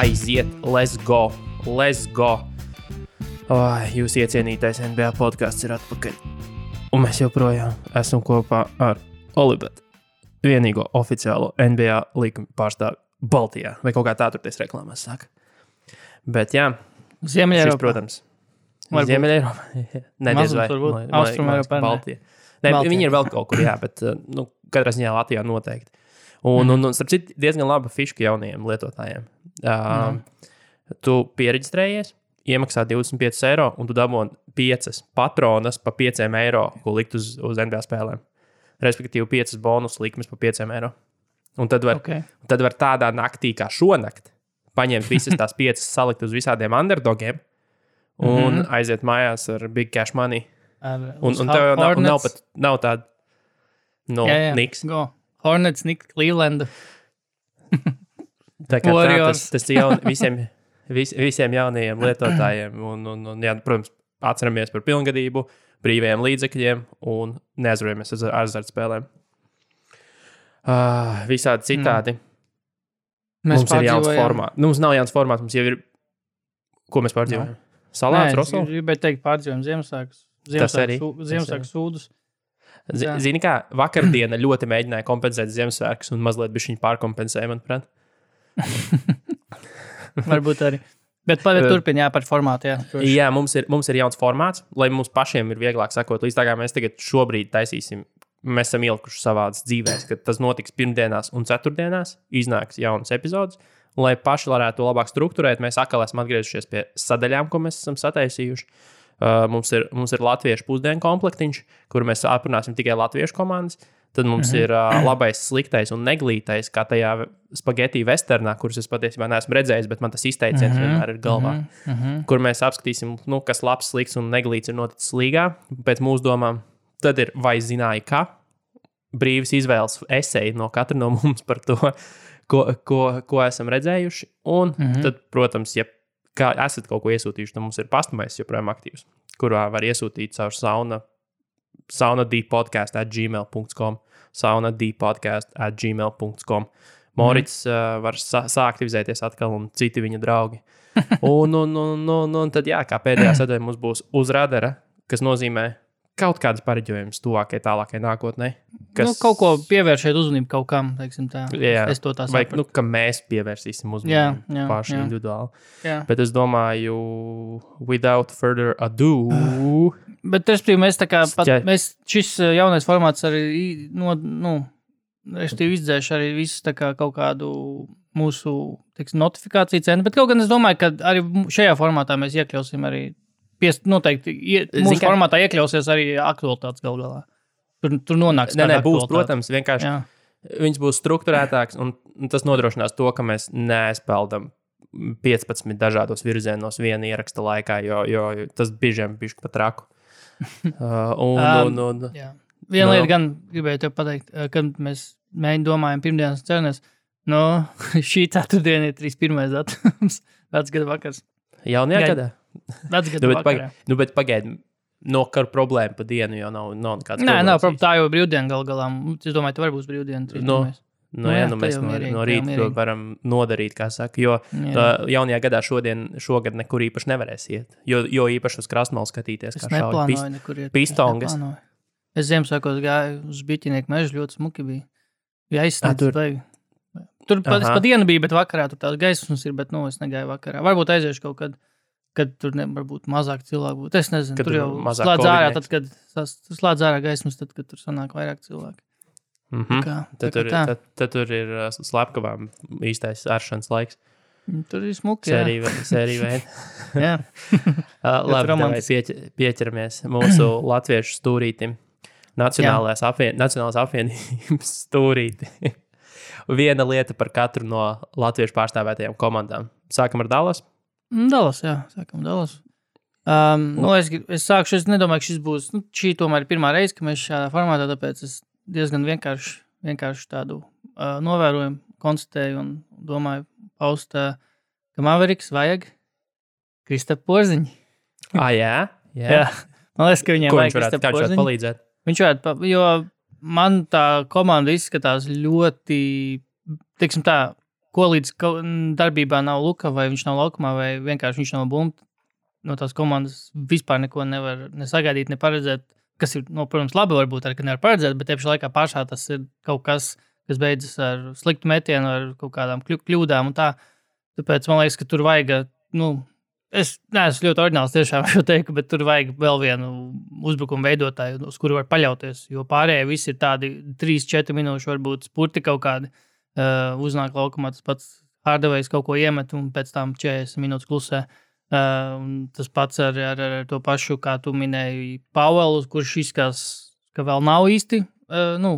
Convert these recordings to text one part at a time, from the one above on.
aiziet, let's go. Jūs iecienītais NBA podcasts ir atpakaļ. Un mēs joprojām esam kopā ar Olibetu, vienīgo oficiālo NBA līkuma pārstāvi Baltijā. Vai kaut kā tā turties reklāmās saka. Bet jā, Ziemeļeiropā. šis, protams, Ziemeļeiropā. Nediez vai. Austrumeiropā. Baltija. Ne, viņi ir vēl kaut kur, jā, bet katrā ziņā Latvijā noteikti. Un starp citu, diezgan laba fiška jaunajiem lietotājiem. Tu piereģistrējies, iemaksā 25 eiro, un tu dabūni 5 patronas pa 5 eiro, ko likt uz NBA spēlēm. Respektīvi 5 bonus likmes pa 5 eiro. Un tad var tādā naktī kā šonakt paņemt visas tās 5, salikt uz visādiem underdogiem un aiziet mājās ar big cash money. Un tev nav tāda Knicks. Go. Hornets, Knicks, Cleveland. Tā kā tas visiem jaunajiem lietotājiem. Un jā, protams, atceramies par pilngadību, brīvajiem līdzekļiem un neaizvarojamies ar azartspēlēm. Visādi citādi. Mums ir jauns formāts. Mums nav jauns formāts, mums jau ir, ko mēs pārdzīvojam? Salāts, Rosol? Es gribēju teikt pārdzīvojam Ziemassvētku sūdus. Zini kā, vakardiena ļoti mēģināja kompensēt Ziemassvētkus un mazliet bišķiņ pārkompensēja, manuprāt. Varbūt arī. Bet turpin, par formātu, jā. Jā, mums ir jauns formāts, lai mums pašiem ir vieglāk sakot, līdz tā kā mēs tagad šobrīd taisīsim. Mēs esam ielikuši savādas dzīvēs, ka tas notiks pirmdienās un ceturtdienās, iznāks jaunas epizodes, un lai paši varētu to labāk strukturēt, mēs atkal esam atgriezušies pie sadaļām, ko mēs esam sataisījuši. Mums ir latviešu pusdienu komplektiņš, kur mēs aprunāsim tikai latviešu komandas. Tad mums ir labais, sliktais un neglītais, kā tajā spageti westernā, kurus es patiesībā neesmu redzējis, bet man tas izteiciens vienmēr ir galvā. Kur mēs apskatīsim, kas labs, slikts un neglīts ir noticis līgā pēc mūsu domām. Tad ir vai zināja, ka brīvas izvēles eseji no katra no mums par to, ko esam redzējuši. Un tad, protams, ja kā esat kaut ko iesūtījuši, tad mums ir pastamais joprojām aktīvs, kurā var iesūtīt caur saunadpodcast@gmail.com saunadpodcast@gmail.com Morits var sāktivizēties atkal un citi viņa draugi. Un tad, jā, kā pēdējā sadaļa mums būs uz radara, kas nozīmē kaut kādas pareģojumus tuvākai, tālākai nākotnē. Kaut ko pievēršēt uzmanību kaut kam, teiksim tā. Jā, es to tā sapratu. Vai, ka mēs pievērsīsim uzmanību paši individuāli. Jā. Bet es domāju, without further ado... Bet, respektīvi, mēs tā kā, šis jaunais formāts arī, respektīvi, izdzēš arī visus tā kā kaut kādu mūsu, notifikāciju cenu, bet kaut gan es domāju, ka arī šajā formātā mēs iekļausim arī noteikti mūsu formātā iekļausies arī aktualitātes galā. Tur nonāks kāda aktualitāte. Būs, protams, vienkārši viņas būs strukturētāks, un tas nodrošinās to, ka mēs neaizpeldam 15 dažādos virzienos viena ieraksta laikā, jo tas bižiem bišķi pat raku. Viena lieta gan gribēju tev pateikt, kad mēs domājam pirmdienas cenas, šī ceturtdiena ir 31. datums, vecgada vakars. Jaunajā gadā? Vecgada vakarā. Bet pagaidi, kar problēma pa dienu jau nav nekāds problēmas. Nav problēma, tā jau brīvdiena galā. Es domāju, tu vari būs brīvdiena 31. Mēs no rīta to varam nodarīt, kā saka, jo jaunajā gadā šogad nekur īpaši nevarēs iet, jo īpaši uz krastmalu skatīties, kā šauj pistongas. Es Ziemassvētkos gāju uz Biķinieku mežu, ļoti smuki bija. Ja aizsniedz vajag. Tur pa dienu bija, bet vakarā tur tās gaismas ir, bet es negāju vakarā. Varbūt aiziešu kaut kad tur varbūt mazāk cilvēku būtu. Es nezinu, tur jau slēdz ārā, tad, kad slēdz ārā gaismas, tad, kad tur sanāk vairāk cilvēku. Tad tur ir slepkavām īstais āršanas laiks. Tur ir smuki, Sērija veida. Labi, pieķeramies mūsu latviešu stūrītim. Nacionālās apvienības stūrīti. Viena lieta par katru no latviešu pārstāvētajām komandām. Sākam ar Dallas? Dallas, jā. Sākam Dallas. Es sākšu, es nedomāju, ka šis būs, šī tomēr ir pirmā reize, ka mēs šādā formātā, tāpēc es diezgan vienkārši tādu novērojumu konstatēju un domāju paust, ka Mavericks vajag Kristapu Porziņu. Jā? Man liekas, ka viņiem vajag Kristapu Porziņu. Kā viņš varētu palīdzēt? Viņš varētu, jo man tā komanda izskatās ļoti, teiksim tā, ko līdz darbībā nav Luka, vai viņš nav laukumā, vai vienkārši viņš nav bumta. No tās komandas vispār neko nevar nesagaidīt, neparedzēt, kas ir, protams, labi varbūt arī, ka nevar paredzēt, bet tieši laikā pašā tas ir kaut kas beidzas ar sliktu metienu, ar kaut kādām kļūdām un tā. Tāpēc man liekas, ka tur vajag, es neesmu ļoti ordināls tiešām šo teiktu, bet tur vajag vēl vienu uzbrukumu veidotāju, uz kuru var paļauties, jo pārējie visi ir tādi 3-4 minūšu varbūt spurti kaut kādi uznāk laukumā, tas pats Hardaway's kaut ko iemet un pēc tam 40 minūtes klusē. Tas pats ar to pašu, kā tu minēji, Pauelu, kurš izskatās, ka vēl nav īsti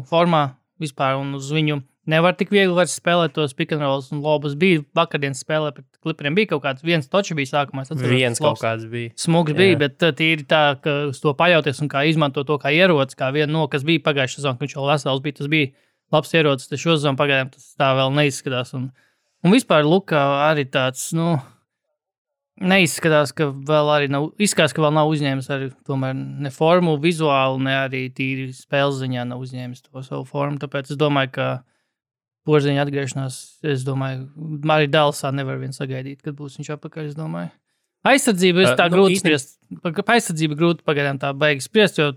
formā vispār, un uz viņu nevar tik viegli vairs spēlēt tos pick and rolls, un lobas bija vakardienas spēlē, pret Clipperiem bija kaut kāds, viens toči bija sākumā. Viens kaut kāds bija. Smugs bija, bet tīri tā, ka uz to paļauties un kā izmanto to kā ierocis, kā vienu kas bija pagājušā sezonā, ka viņš vēl vesels bija, tas bija labs ierocis, tas šo sezonu pagaidām tas tā vēl neizskatās, un vispār Luka arī tāds, neizskatās, ka vēl arī nav uzņēmis arī tomēr ne formu vizuāli, ne arī tīri spēles ziņā nav uzņēmis to savu formu. Tāpēc es domāju, ka Porziņa atgriešanās, es domāju, arī Dallasā nevar vien sagaidīt, kad būs viņš atpakaļ, es domāju. Aizsardzība ir tā grūti spriest. Aizsardzība grūti pagaidām tā beigas spriest, jo,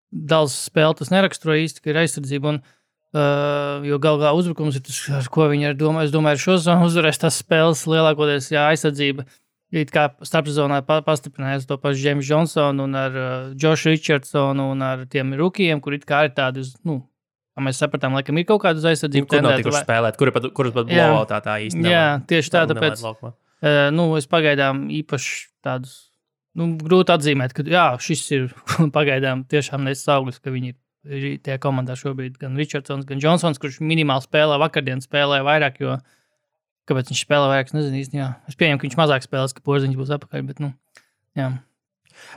Dallas spēle tas neraksturo īsti, ka ir aizsardzība, jo galvā uzbrukums ir tas, ar ko viņi domā. Es domāju, ar šo zonu uzvarēs tās spēles lielākoties, aizsardzība. It kā starpsezonā pastiprinājās to pašu James Johnsonu un ar Joshu Richardsonu un ar tiem rukijiem, kur it kā ir tādi, kā mēs sapratām, laikam ir kaut kāda aizsardzība. Kur nav tikuši spēlēt, kurus pat blowoutā tā īsti nav. Jā, tieši tā, tāpēc es pagaidām īpaši tādus, grūti atzīmēt, ka šis ir pagaidām tiešām nesis auglis, ka viņi ir tie komandā šobrīd gan Richardsons, gan Johnsons, kurš minimāli spēlē, vakardien spēlē vairāk, jo kāpēc viņš spēlē vairāk, es nezinu īsti, Es pieņemu, ka viņš mazāk spēlēs, ka Porziņš būs atpakaļ, bet, jā.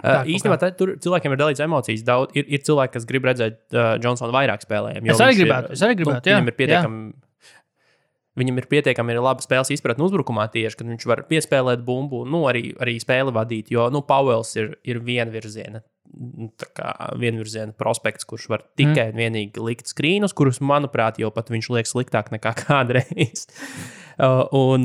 Īstenībā tur cilvēkiem ir dalīts emocijas daudz. Ir cilvēki, kas grib redzēt Johnsonu vairāk spēlējiem. Es arī gribētu, jā. Viņam ir pietiekami laba spēles izpratne uzbrukumā tieši, kad viņš var piespēlēt bumbu, arī spēli vadīt, jo, Pauels ir vienvirziena prospekts, kurš var tikai un vienīgi likt skrīnus, kurus, manuprāt, jau pat viņš liek sliktāk nekā kādreiz. Un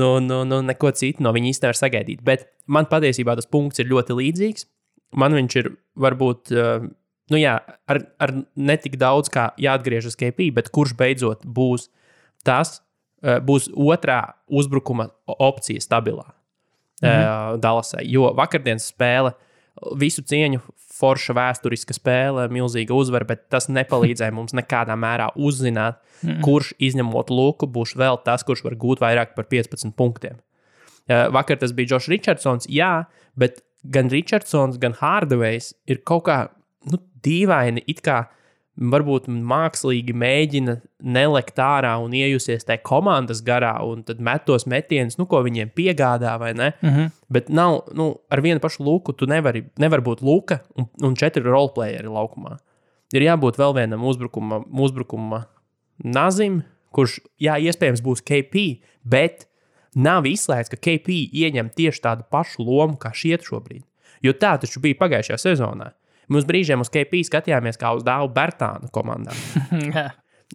neko citu no viņa īsti nevar sagaidīt. Bet man patiesībā tas punkts ir ļoti līdzīgs. Man viņš ir varbūt, ar netik daudz kā jāatgriežas KP, bet kurš beidzot būs otrā uzbrukuma opcija stabilā Dallasai. Jo vakardienas spēle, visu cieņu, forša vēsturiska spēle, milzīga uzvara, bet tas nepalīdzēja mums nekādā mērā uzzināt, kurš izņemot Luku būs vēl tas, kurš var gūt vairāk par 15 punktiem. Vakar tas bija Josh Richardsons, bet gan Richardsons, gan Hardaway's ir kaut kā dīvaini, it kā varbūt mākslīgi mēģina nelekt ārā un iejusies tajā komandas garā un tad met tos metienus, ko viņiem piegādā, vai ne? Bet nav, ar vienu pašu Luku tu nevar būt Luka un 4 roleplayeri laukumā. Ir jābūt vēl vienam uzbrukuma nazim, kurš, iespējams būs KP, bet nav izslēgts, ka KP ieņem tieši tādu pašu lomu kā šiet šobrīd. Jo tā taču bija pagājušajā sezonā. Mēs brīžiem uz KP skatījāmies kā uz Dāvu Bertānu komandā.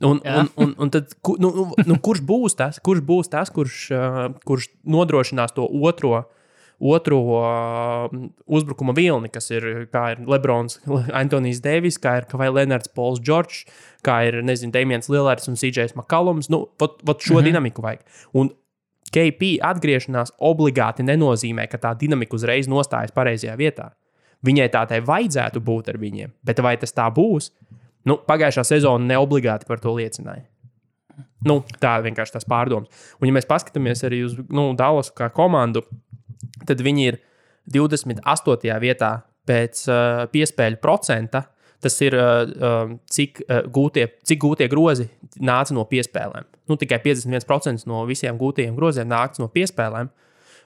Un tad, kurš būs tas, kurš nodrošinās to otro uzbrukuma vilni, kas ir, kā ir Lebrons, Antonijs Deivis, kā ir Kawhi Leonards, Pauls Džordžs, kā ir, Damians Lillards un CJs McCollums. Šo dinamiku vajag. Un KP atgriešanās obligāti nenozīmē, ka tā dinamika uzreiz nostājas pareizajā vietā. Viņai tādai vajadzētu būt ar viņiem, bet vai tas tā būs? Pagājušā sezona neobligāti par to liecināja. Tā vienkārši tas pārdoms. Un ja mēs paskatāmies arī uz Dallasu kā komandu, tad viņi ir 28. vietā pēc piespēļu procenta. Tas ir, cik gūtie grozi nāca no piespēlēm. Tikai 51% no visiem gūtajiem groziem nāca no piespēlēm.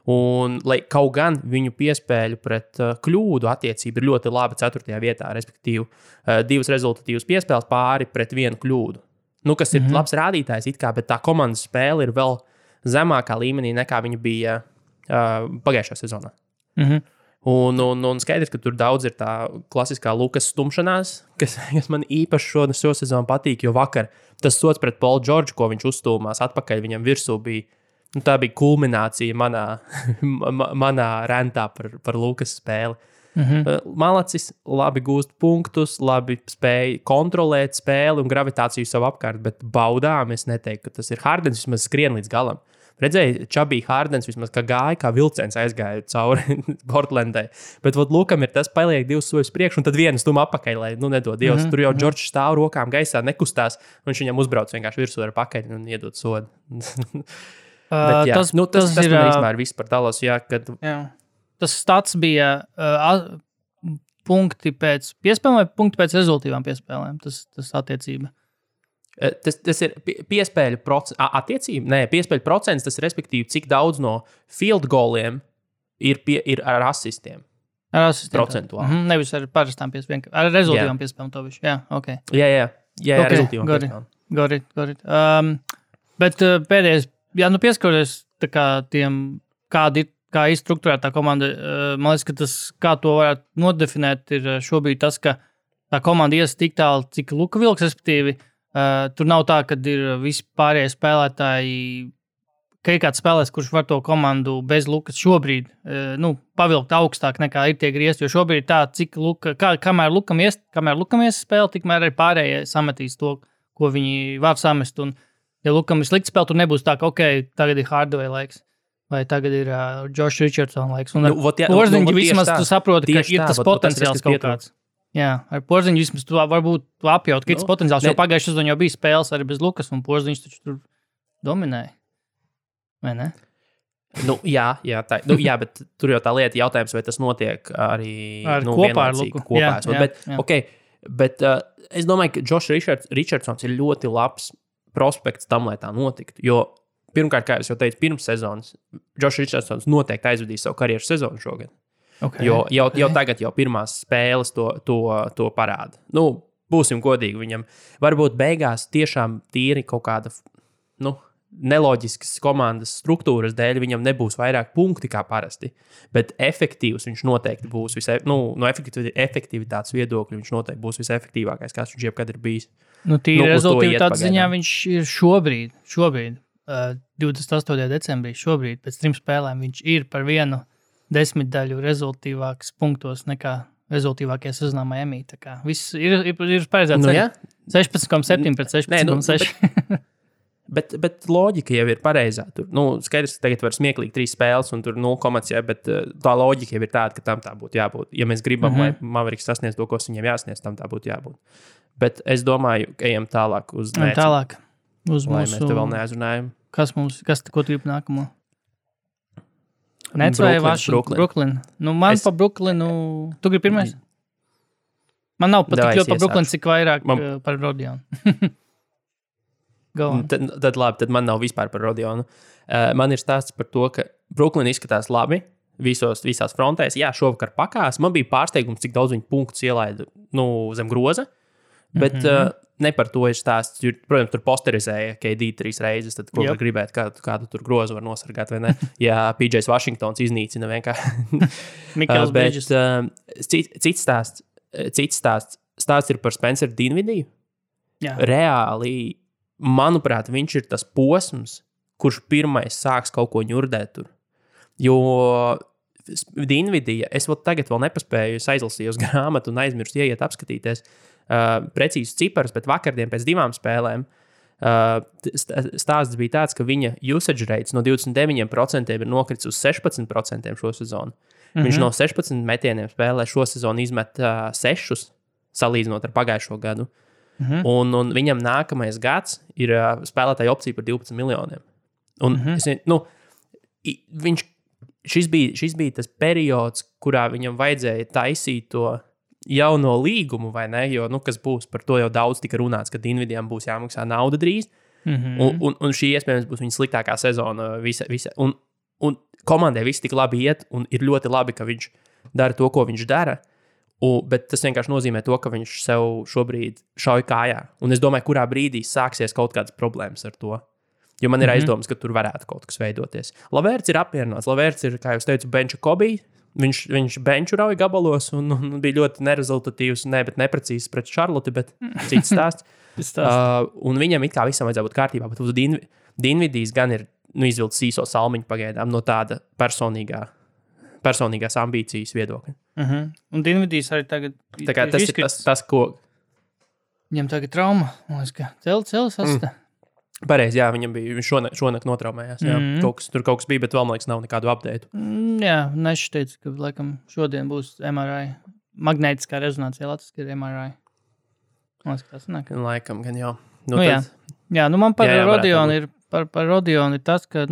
Un, lai kaut gan viņu piespēļu pret kļūdu attiecība ir ļoti laba 4. vietā, respektīvi 2 rezultatīvas piespēles pāri pret 1 kļūdu. Kas ir labs rādītājs, bet tā komandas spēle ir vēl zemākā līmenī nekā viņa bija pagājušajā sezonā. Un skaidrs, ka tur daudz ir tā klasiskā Lukas stumšanās, kas man īpaši šo sezonu patīk, jo vakar tas sots pret Paulu Džordžu, ko viņš uzstūmās atpakaļ viņam virsū, tā bija kulminācija manā rentā par Lukas spēli. Malacis labi gūst punktus, labi spēja kontrolēt spēli un gravitāciju savu apkārt, bet baudām es neteiktu, ka tas ir Hardens, vismaz skrien līdz galam. Redzēju, Čabī Hardens vismaz gāja, kā vilciens aizgāja cauri Portlandai. Bet Lukam ir tas, paliek 2 soļus priekš, un tad vienu stumu apakaļ, lai nedod Dievs. Tur jau Džordžs stāv rokām gaisā, nekustās, un viņš viņam uzbrauc vienkārši virsū ar pakaļ un iedod sodu. Bet, tas ir vispār viss par Dallasu. Tas stats bija punkti pēc piespēlēm vai punkti pēc rezultīvām piespēlēm? Tas attiecība. Tas ir piespēļu procents. Attiecība? Nē, piespēļu procents, tas ir respektīvi, cik daudz no field goliem ir ar asistiem. Ar asistiem. Procentuāli. Nevis ar parastām piespēlēm. Ar rezultīvām piespēlēm to visu. Jā, ok. Jā, ar rezultīvām piespēlēm. Got it. Bet pēdējais, pieskaroties tā kā tiem, kā ir strukturēta tā komanda, man liekas, ka tas, kā to varētu nodefinēt, ir šobrīd tas, ka tā komanda ies tik tālu, cik Luka vilks, respektīvi, tur nav tā, ka ir visi pārējie spēlētāji, ka ir kāds spēlētājs, kurš var to komandu bez Lukas šobrīd pavilkt augstāk nekā ir tie griezti, jo šobrīd ir tā, cik kamēr Lukam ies spēle, tikmēr arī pārējie sametīs to, ko viņi var samest. Un, ja Lukam ir slikts spēle, tur nebūs tā, ka tagad ir Hardaway laiks, vai tagad ir Josh Richardson laiks. Un Porziņģi vismaz tu saproti, ka ir tas potenciāls kaut kāds. Jā, ar Porziņu vismaz tu varbūt apjaut, ka ir potenciāls, jo pagājušajā sezonā jau bija spēles arī bez Lukas, un Porziņš taču tur dominēja. Vai ne? Jā, bet tur jau tā lieta jautājums, vai tas notiek arī kopā ar Luku. Bet es domāju, ka Josh Richardsons ir ļoti labs prospekts tam, lai tā notiktu, jo pirmkārt, kā es jau teicu, pirms sezonas Josh Richardsons noteikti aizvedīs savu karjeras sezonu šogad. Okay, jau tagad jau pirmās spēles to parāda. Būsim godīgi viņam. Varbūt beigās tiešām tīri kaut kāda neloģiskas komandas struktūras dēļ viņam nebūs vairāk punkti kā parasti, bet efektīvs viņš noteikti būs no efektivitātes viedokļa viņš noteikti būs visefektīvākais, kāds viņš jebkad ir bijis. Tīri rezultātu ziņā viņš ir šobrīd 28. decembrī, pēc 3 spēlēm viņš ir par vienu 10 daļu rezultīvāks punktos nekā rezultīvākie sezonā Miami. Tā kā viss ir paredzēts 16,7 pret 16,6. Bet loģika jau ir pareizā. Tur, skaidrs, ka tagad var smieklīgi 3 spēles un tur 0,5, bet tā loģika jau ir tāda, ka tam tā būtu jābūt. Ja mēs gribam, lai Mavericks sasniedz to, ko viņiem jāsniedz, tam tā būtu jābūt. Bet es domāju, ka ejam tālāk uz Nets. Tālāk uz lai mūsu... mēs te vēl neaizrunājam. Ko tu gribi nākamo? Nets vai Brooklyn? Man pa Brooklynu... Tu gribi pirmais? Man nav pat tik ļoti pa Brooklyn, cik vairāk par Rodionu. Tad man nav vispār par Rodionu. Man ir stāsts par to, ka Brooklyn izskatās labi visās frontēs. Jā, šovakar pakās. Man bija pārsteigums, cik daudz viņu punktus ielaida zem groza. Bet ne par to ir stāsts. Protams, tur posterizēja KD 3 reizes. Tad, ko var gribēt, kādu tur grozu var nosargāt, vai ne? Ja PJs Washingtons iznīcina vienkārši. Mikls Bridges. Cits stāsts. Stāsts ir par Spenceru Dinvidiju. Jā. Reāli, manuprāt, viņš ir tas posms, kurš pirmais sāks kaut ko ņurdēt tur. Jo Dinvidija, es tagad vēl nepaspēju, es aizlasīju uz grāmatu un aizmirstu ieiet apskatīties precīzus ciparus, bet vakardien pēc 2 spēlēm stāsts bija tāds, ka viņa usage rates no 29% ir nokritis uz 16% šo sezonu. Viņš no 16 metieniem spēlē šo sezonu izmet 6, salīdzinot ar pagājušo gadu. Un viņam nākamais gads ir spēlētāja opcija par 12 miljoniem. Un šis bija tas periods, kurā viņam vajadzēja taisīt to jauno līgumu, vai ne? Jo, kas būs, par to jau daudz tika runāts, ka Dinvidijam būs jāmaksā nauda drīz. Un šī iespējams būs viņa sliktākā sezona. Un komandai viss tik labi iet, un ir ļoti labi, ka viņš dara to, ko viņš dara. Bet tas vienkārši nozīmē to, ka viņš sev šobrīd šauj kājā. Un es domāju, kurā brīdī sāksies kaut kādas problēmas ar to. Jo man ir aizdomas, ka tur varētu kaut kas veidoties. Lavērts ir apmierināts. Lavērts ir, kā jau teicu, benču Kobe. Viņš benču rauja gabalos un bija ļoti nerezultatīvs, bet neprecīzs pret Charlotte, bet cits stāsts. Un viņam it kā visam vajadzētu būt kārtībā, bet Dinvidijs gan ir izvilcis īso salmiņu pagaidām no tāda personīgās ambīcijas viedokļa. Un Dinvidijs arī tagad tas, ko... Viņam tagad trauma, man liekas, ka celis asta. Pareizi, jā, viņš šonakt notraumējās. Jā. Tur kaut kas bija, bet vēl, man liekas, nav nekādu update. Jā, Nešs teica, ka laikam šodien būs MRI. Magnētiskā rezonancija latviski ir MRI. Man liekas, tas nāk. Laikam, gan jau. Jā, man par Rodionu ir, par Rodionu ir tas, ka,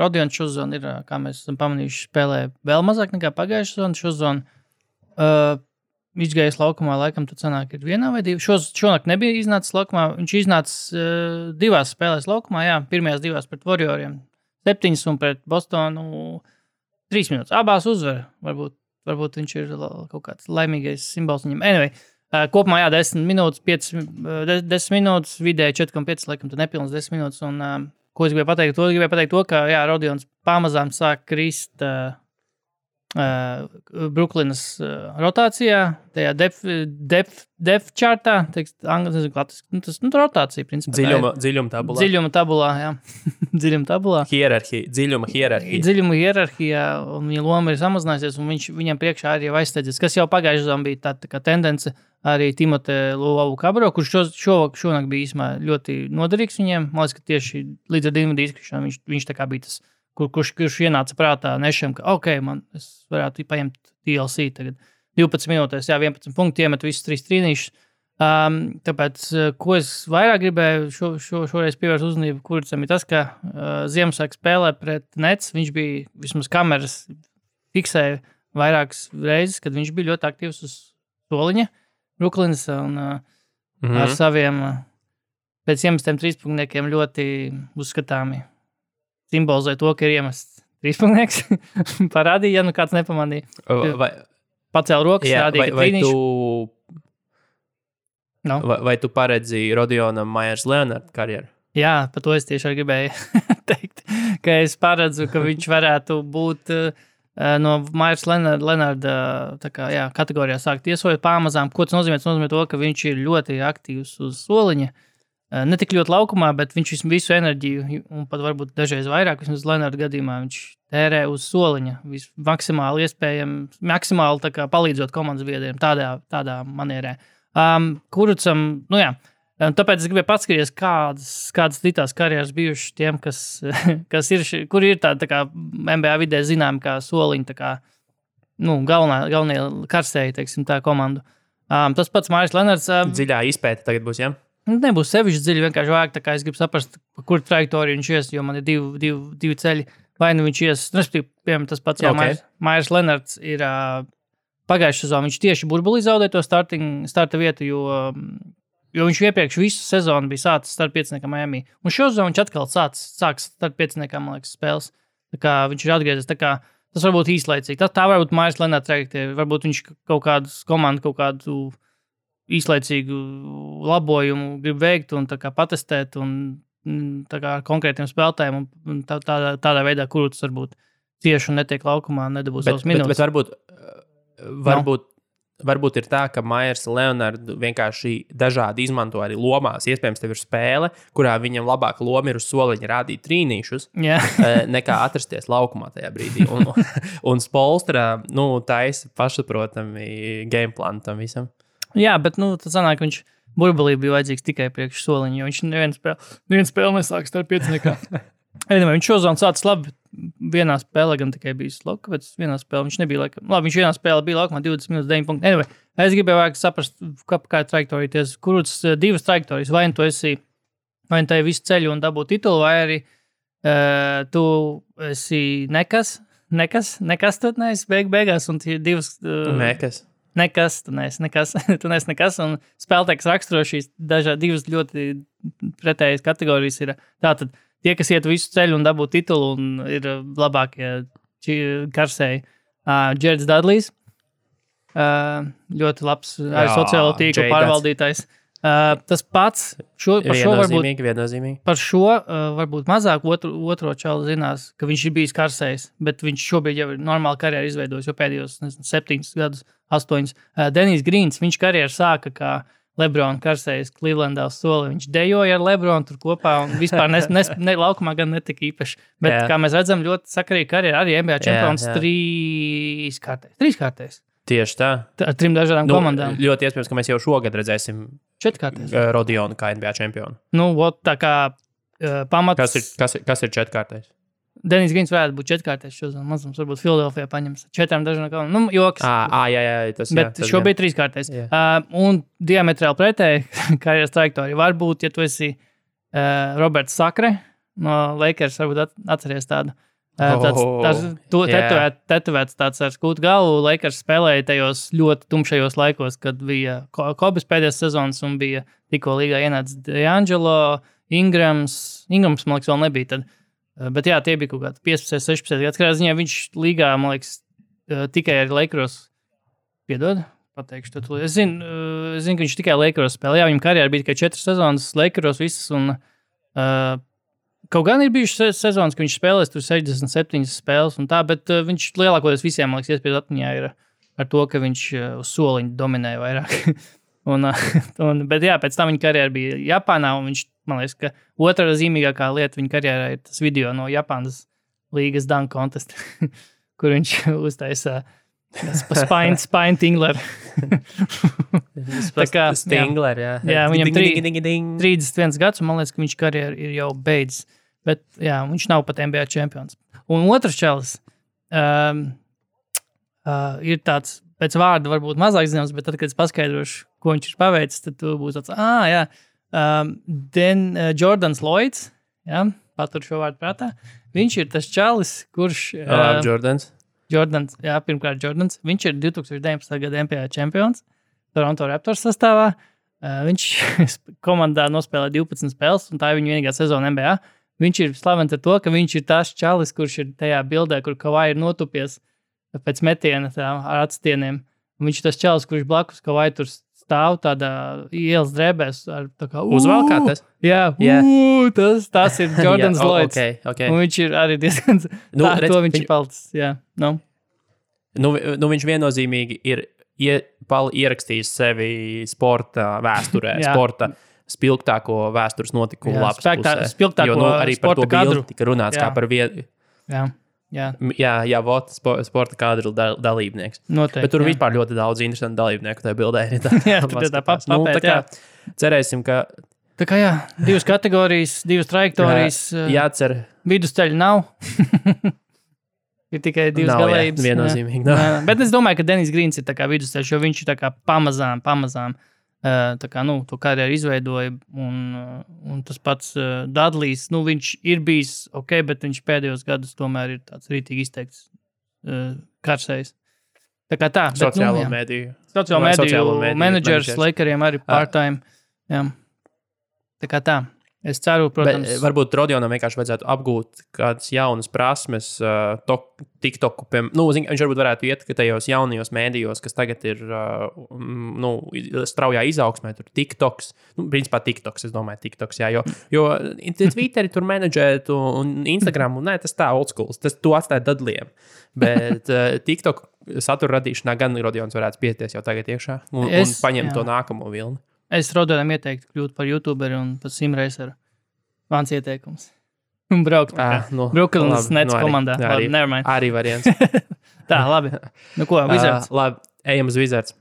Rodions šozon ir, kā mēs esam pamanījuši, spēlē vēl mazāk nekā pagājušā sezona. Šozon izgājis laukumā, laikam, tad sanāk ir vienā vai divi. Šonakt nebija iznācis laukumā. Viņš iznācis 2 spēlēs laukumā, pirmajās 2 pret Warrioriem 7 un pret Bostonu 3 minūtes. Abās uzvar. Varbūt viņš ir kaut kāds laimīgais simbols viņam. Anyway, kopumā 10 minūtes, 10 minūtes, vidēji 4,5, laikam, tad nepilns 10 minūtes. Un, ko es gribēju pateikt? Gribēju pateikt to, ka, Rodions pamazām sāk krist Brooklynas rotācijā, tajā depth chartā, tas rotācija, principā. Dziļuma tabulā. Dziļuma tabulā, jā. Dziļuma tabulā. Dziļuma hierarhija. Dziļuma hierarhijā, un viņa loma ir samazinājusies, un viņam priekšā arī jau aizsteidzies, kas jau pagājušajā sezonā bija tā kā tendence arī Timote Luavu-Kabro, kurš šonakt bija īsumā ļoti noderīgs viņiem. Man liekas, ka tieši līdz ar Dinvidiju izkrišanu viņš tā kā bija tas, kurš ienāca prātā Nešam, ka es varētu paņemt TLC tagad 12 minūtēs, 11 punkti, iemet visus 3 trīnīšus. Tāpēc, ko es vairāk gribēju šoreiz pievērst uzmanību, Kuricam ir tas, ka Ziemassvētku spēlē pret Nets, viņš bija vismaz kameras fiksēja vairākas reizes, kad viņš bija ļoti aktīvs uz soliņa Brooklynas un ar saviem pēc iemestiem 3-punktniekiem ļoti uzskatāmi. Simbolizē to, ka ir iemests 3-punktnieks. Parādīja, ja kāds nepamanīja. Pacēl rokas, rādīja, ka trīnīšu. Vai tu paredzi Rodionam Myers Leonard karjeru? Jā, par to es tieši arī gribēju teikt, ka es paredzu, ka viņš varētu būt no Myers Leonarda kategorijā sākt iesojot pamazām. Ko tas nozīmē? Tas nozīmē to, ka viņš ir ļoti aktīvs uz soliņa. Ne tik ļoti laukumā, bet viņš visu enerģiju, un pat varbūt dažreiz vairāk, vismaz Leonarda gadījumā, viņš tērē uz soliņa. Maksimāli iespējami, maksimāli tā kā palīdzot komandas biedriem tādā manierē. Kurucam, tāpēc es gribēju paskatīties, kādas citās karjeras bijušas tiem, kas ir, kuri ir tā kā NBA vidē zināmi kā soliņi, tā kā, galvenie karsēji, teiksim, tā komandu. Tas pats Myers Leonards. Dziļā izpēta tagad būs, jā? Nebūs sevišķi dziļi, vienkārši vajag, tā kā es gribu saprast, kur trajektoriju viņš ies, jo man ir divi ceļi. Vai nu viņš ies, piemēram, tas pats, Myers Leonards ir pagājušajā sezonā, viņš tieši burbulī zaudēja to starta vietu, jo viņš iepriekš visu sezonu bija sācis starp 5 Miami. Un šo sezonu viņš atkal sāks starp 5, man liekas, spēles. Tā kā viņš ir atgriezies, tā kā tas varbūt īslaicīgi. Tā varbūt Myers Leonards trajektorija, varbūt viņš kaut kādu īslaicīgu labojumu grib veikt un tā kā patestēt un tā kā konkrētiem spēlētājiem un tādā veidā, kur tas varbūt cieši un netiek laukumā, nedabūs savus minūtes. Bet varbūt ir tā, ka Myers Leonards vienkārši dažādi izmanto arī lomās. Iespējams, tev ir spēle, kurā viņam labāka loma ir uz soliņa rādīt trīnīšus, nekā atrasties laukumā tajā brīdī. Un Spolstra, taisa pašsaprotami gameplānu tam visam. Jā, bet tas sanāk, ka viņš burbulī bija vajadzīgs tikai priekš soliņa, jo viņš nevienu spēli nesāks starp 5 nekā. Viņš šozonu sācis labi, vienā spēlē gan tikai bijis lauka, bet vienā spēlē viņš nebija laikam. Labi, viņš vienā spēlē bija laukumā 20 minūtes 9 punkti. Anyway, es gribēju vajag saprast, kā trajektorijas, kurus 2 trajektorijas, vai tu esi, vai tu visu ceļu un dabū titulu, vai arī tu esi nekas, tu neesi beigās, un tie 2... Nekas, tu neesi nekas, un spēlētājs raksturo šīs divas ļoti pretējas kategorijas ir tātad tie, kas iet visu ceļu un dabū titulu un ir labākie karsēji. Jareds Dudlejs, ļoti labs arī sociālo tīklu pārvaldītājs. Tas pats viennozīmīgi. Par šo varbūt mazāk otro čalu zinās, ka viņš ir bijis karsējs, bet viņš šobrīd jau ir normāli karjeru izveidojis, jo pēdējos 7 gadus, 8. Denijs Grīns, viņš karjeru sāka kā Lebrona karsējs Clevelandā uz soli. Viņš dejoja ar Lebronu tur kopā un vispār laukumā gan netika īpaši. Bet, kā mēs redzam, ļoti sakarīgi karjeru arī NBA čempions 3 kārtēs. Tieši tā. Ar 3 dažādām komandām. Ļoti iespējams, ka mēs jau šogad redzēsim 4 kārtēs. Rodionu kā NBA čempionu. Tā kā pamats... Kas ir 4 kārtēs? Denijs Grīns varētu būt 4 kārtēs šodien. Mazums varbūt Filadelfijā paņems 4 dažādām komandām. Joks. Jā. Bet šobrīd 3 kārtēs. Un diametrāli pretēji karjeras trajektorija var būt, ja tu esi Roberts Sakre no Lakers, varbūt atceries tādu. Tetovēts tāds ar skūtu galvu. Lakers spēlēja tajos ļoti tumšajos laikos, kad bija Kobes pēdējās sezonas un bija tikko līgā ienācis D'Angelo, Ingrams, man liekas, vēl nebija tad. Bet jā, tie bija kaut kādi 15, 16 gads. Kādā ziņā viņš līgā, man liekas, tikai ar Lakers piedod. Pateikšu to. Es zinu, ka viņš tikai Lakers spēlēja. Jā, viņam karjerā bija tikai 4 sezonas Lakers visas un kaut gan ir bijušas sezonas, ka viņš spēlēs tur 67 spēles un tā, bet viņš lielākoties visiem, man liekas, iespējas atmiņā ir ar to, ka viņš uz soliņu dominēja vairāk. Bet jā, pēc tam viņa karjera bija Japānā, un viņš, man liekas, ka otrā zīmīgākā lieta viņa karjerā ir tas video no Japānas līgas dunk contest, kur viņš uztaisa Spine Tingler. Stingler, jā. Jā, viņam 31 gads, un man liekas, ka viņš karjeru ir jau beidzis. Bet jā, viņš nav pat NBA čempions. Un otrs čalis ir tāds, pēc vārda varbūt mazāk zināms, bet tad, kad es paskaidrošu, ko viņš ir paveicis, tad tu būs tāds, Jordans Lloyds, jā, patur šo vārdu prātā. Viņš ir tas čalis, kurš... Jordans, jā, pirmkārt Jordans. Viņš ir 2019. gada NBA čempions Toronto Raptors sastāvā. Viņš komandā nospēlē 12 spēles, un tā ir viņa vienīgā sezona NBA. Viņš ir slavens ar to, ka viņš ir tās čalis, kurš ir tajā bildē, kur Kawhi ir notupies pēc metiena ar atstieniem. Un viņš ir tas čalis, kurš blakus Kawhi tur stāv tādā ielas drēbēs. Uzvalkātas? Jā, tas ir Jordans Lloyds. Okay. Un viņš ir arī diezgan... viņš ir palicis, jā. Viņš viennozīmīgi ir ierakstījis sevi sporta vēsturē, sporta spilgtāko vēstures notikumu lapas pusē. Spilgtāko arī par to bildi tika runāts kā par vienu. Jā, sporta kadru dalībnieks. Noteikti, bet tur vispār ļoti daudz interesantu dalībnieku tajā bildē. Jā, tur tā papēt, jā. Cerēsim, ka... Tā kā jā, 2 kategorijas, 2 trajektorijas. Jācer. Vidusceļa nav. Ir tikai 2 galējības. Viennozīmīgi. Bet es domāju, ka Denijs Grīns ir tā kā vidusceļš, jo viņš ir tā kā pamazām tā kā, to karjeru izveidoja, un tas pats Dudlejs, viņš ir bijis ok, bet viņš pēdējos gadus tomēr ir tāds rītīgi izteikts karsējs. Tā kā tā. Sociālo mediju menedžers Lakeriem arī part-time. Jā. Tā kā tā. Es ceru, protams... Bet varbūt Rodionam vienkārši vajadzētu apgūt kādas jaunas prasmes, TikToku, viņš varbūt varētu iet tajos jaunajos mēdījos, kas tagad ir straujā izaugsmē, tur TikToks, principā TikToks, es domāju, TikToks, jā, jo Twitteri tur menedžēt un Instagram, un tas tā old schools, to atstāja Dudleyiem, bet TikTok satura radīšanā gan Rodions varētu pieties jau tagad iekšā un paņemt to nākamo vilni. Es Rodionam ieteiktu kļūt par YouTuberi un par simreiseru. Mans ieteikums. Un braukt Brooklynas Nets komandā. Arī variants. Tā, labi. Ko, Wizards? Labi, ejam uz Wizards.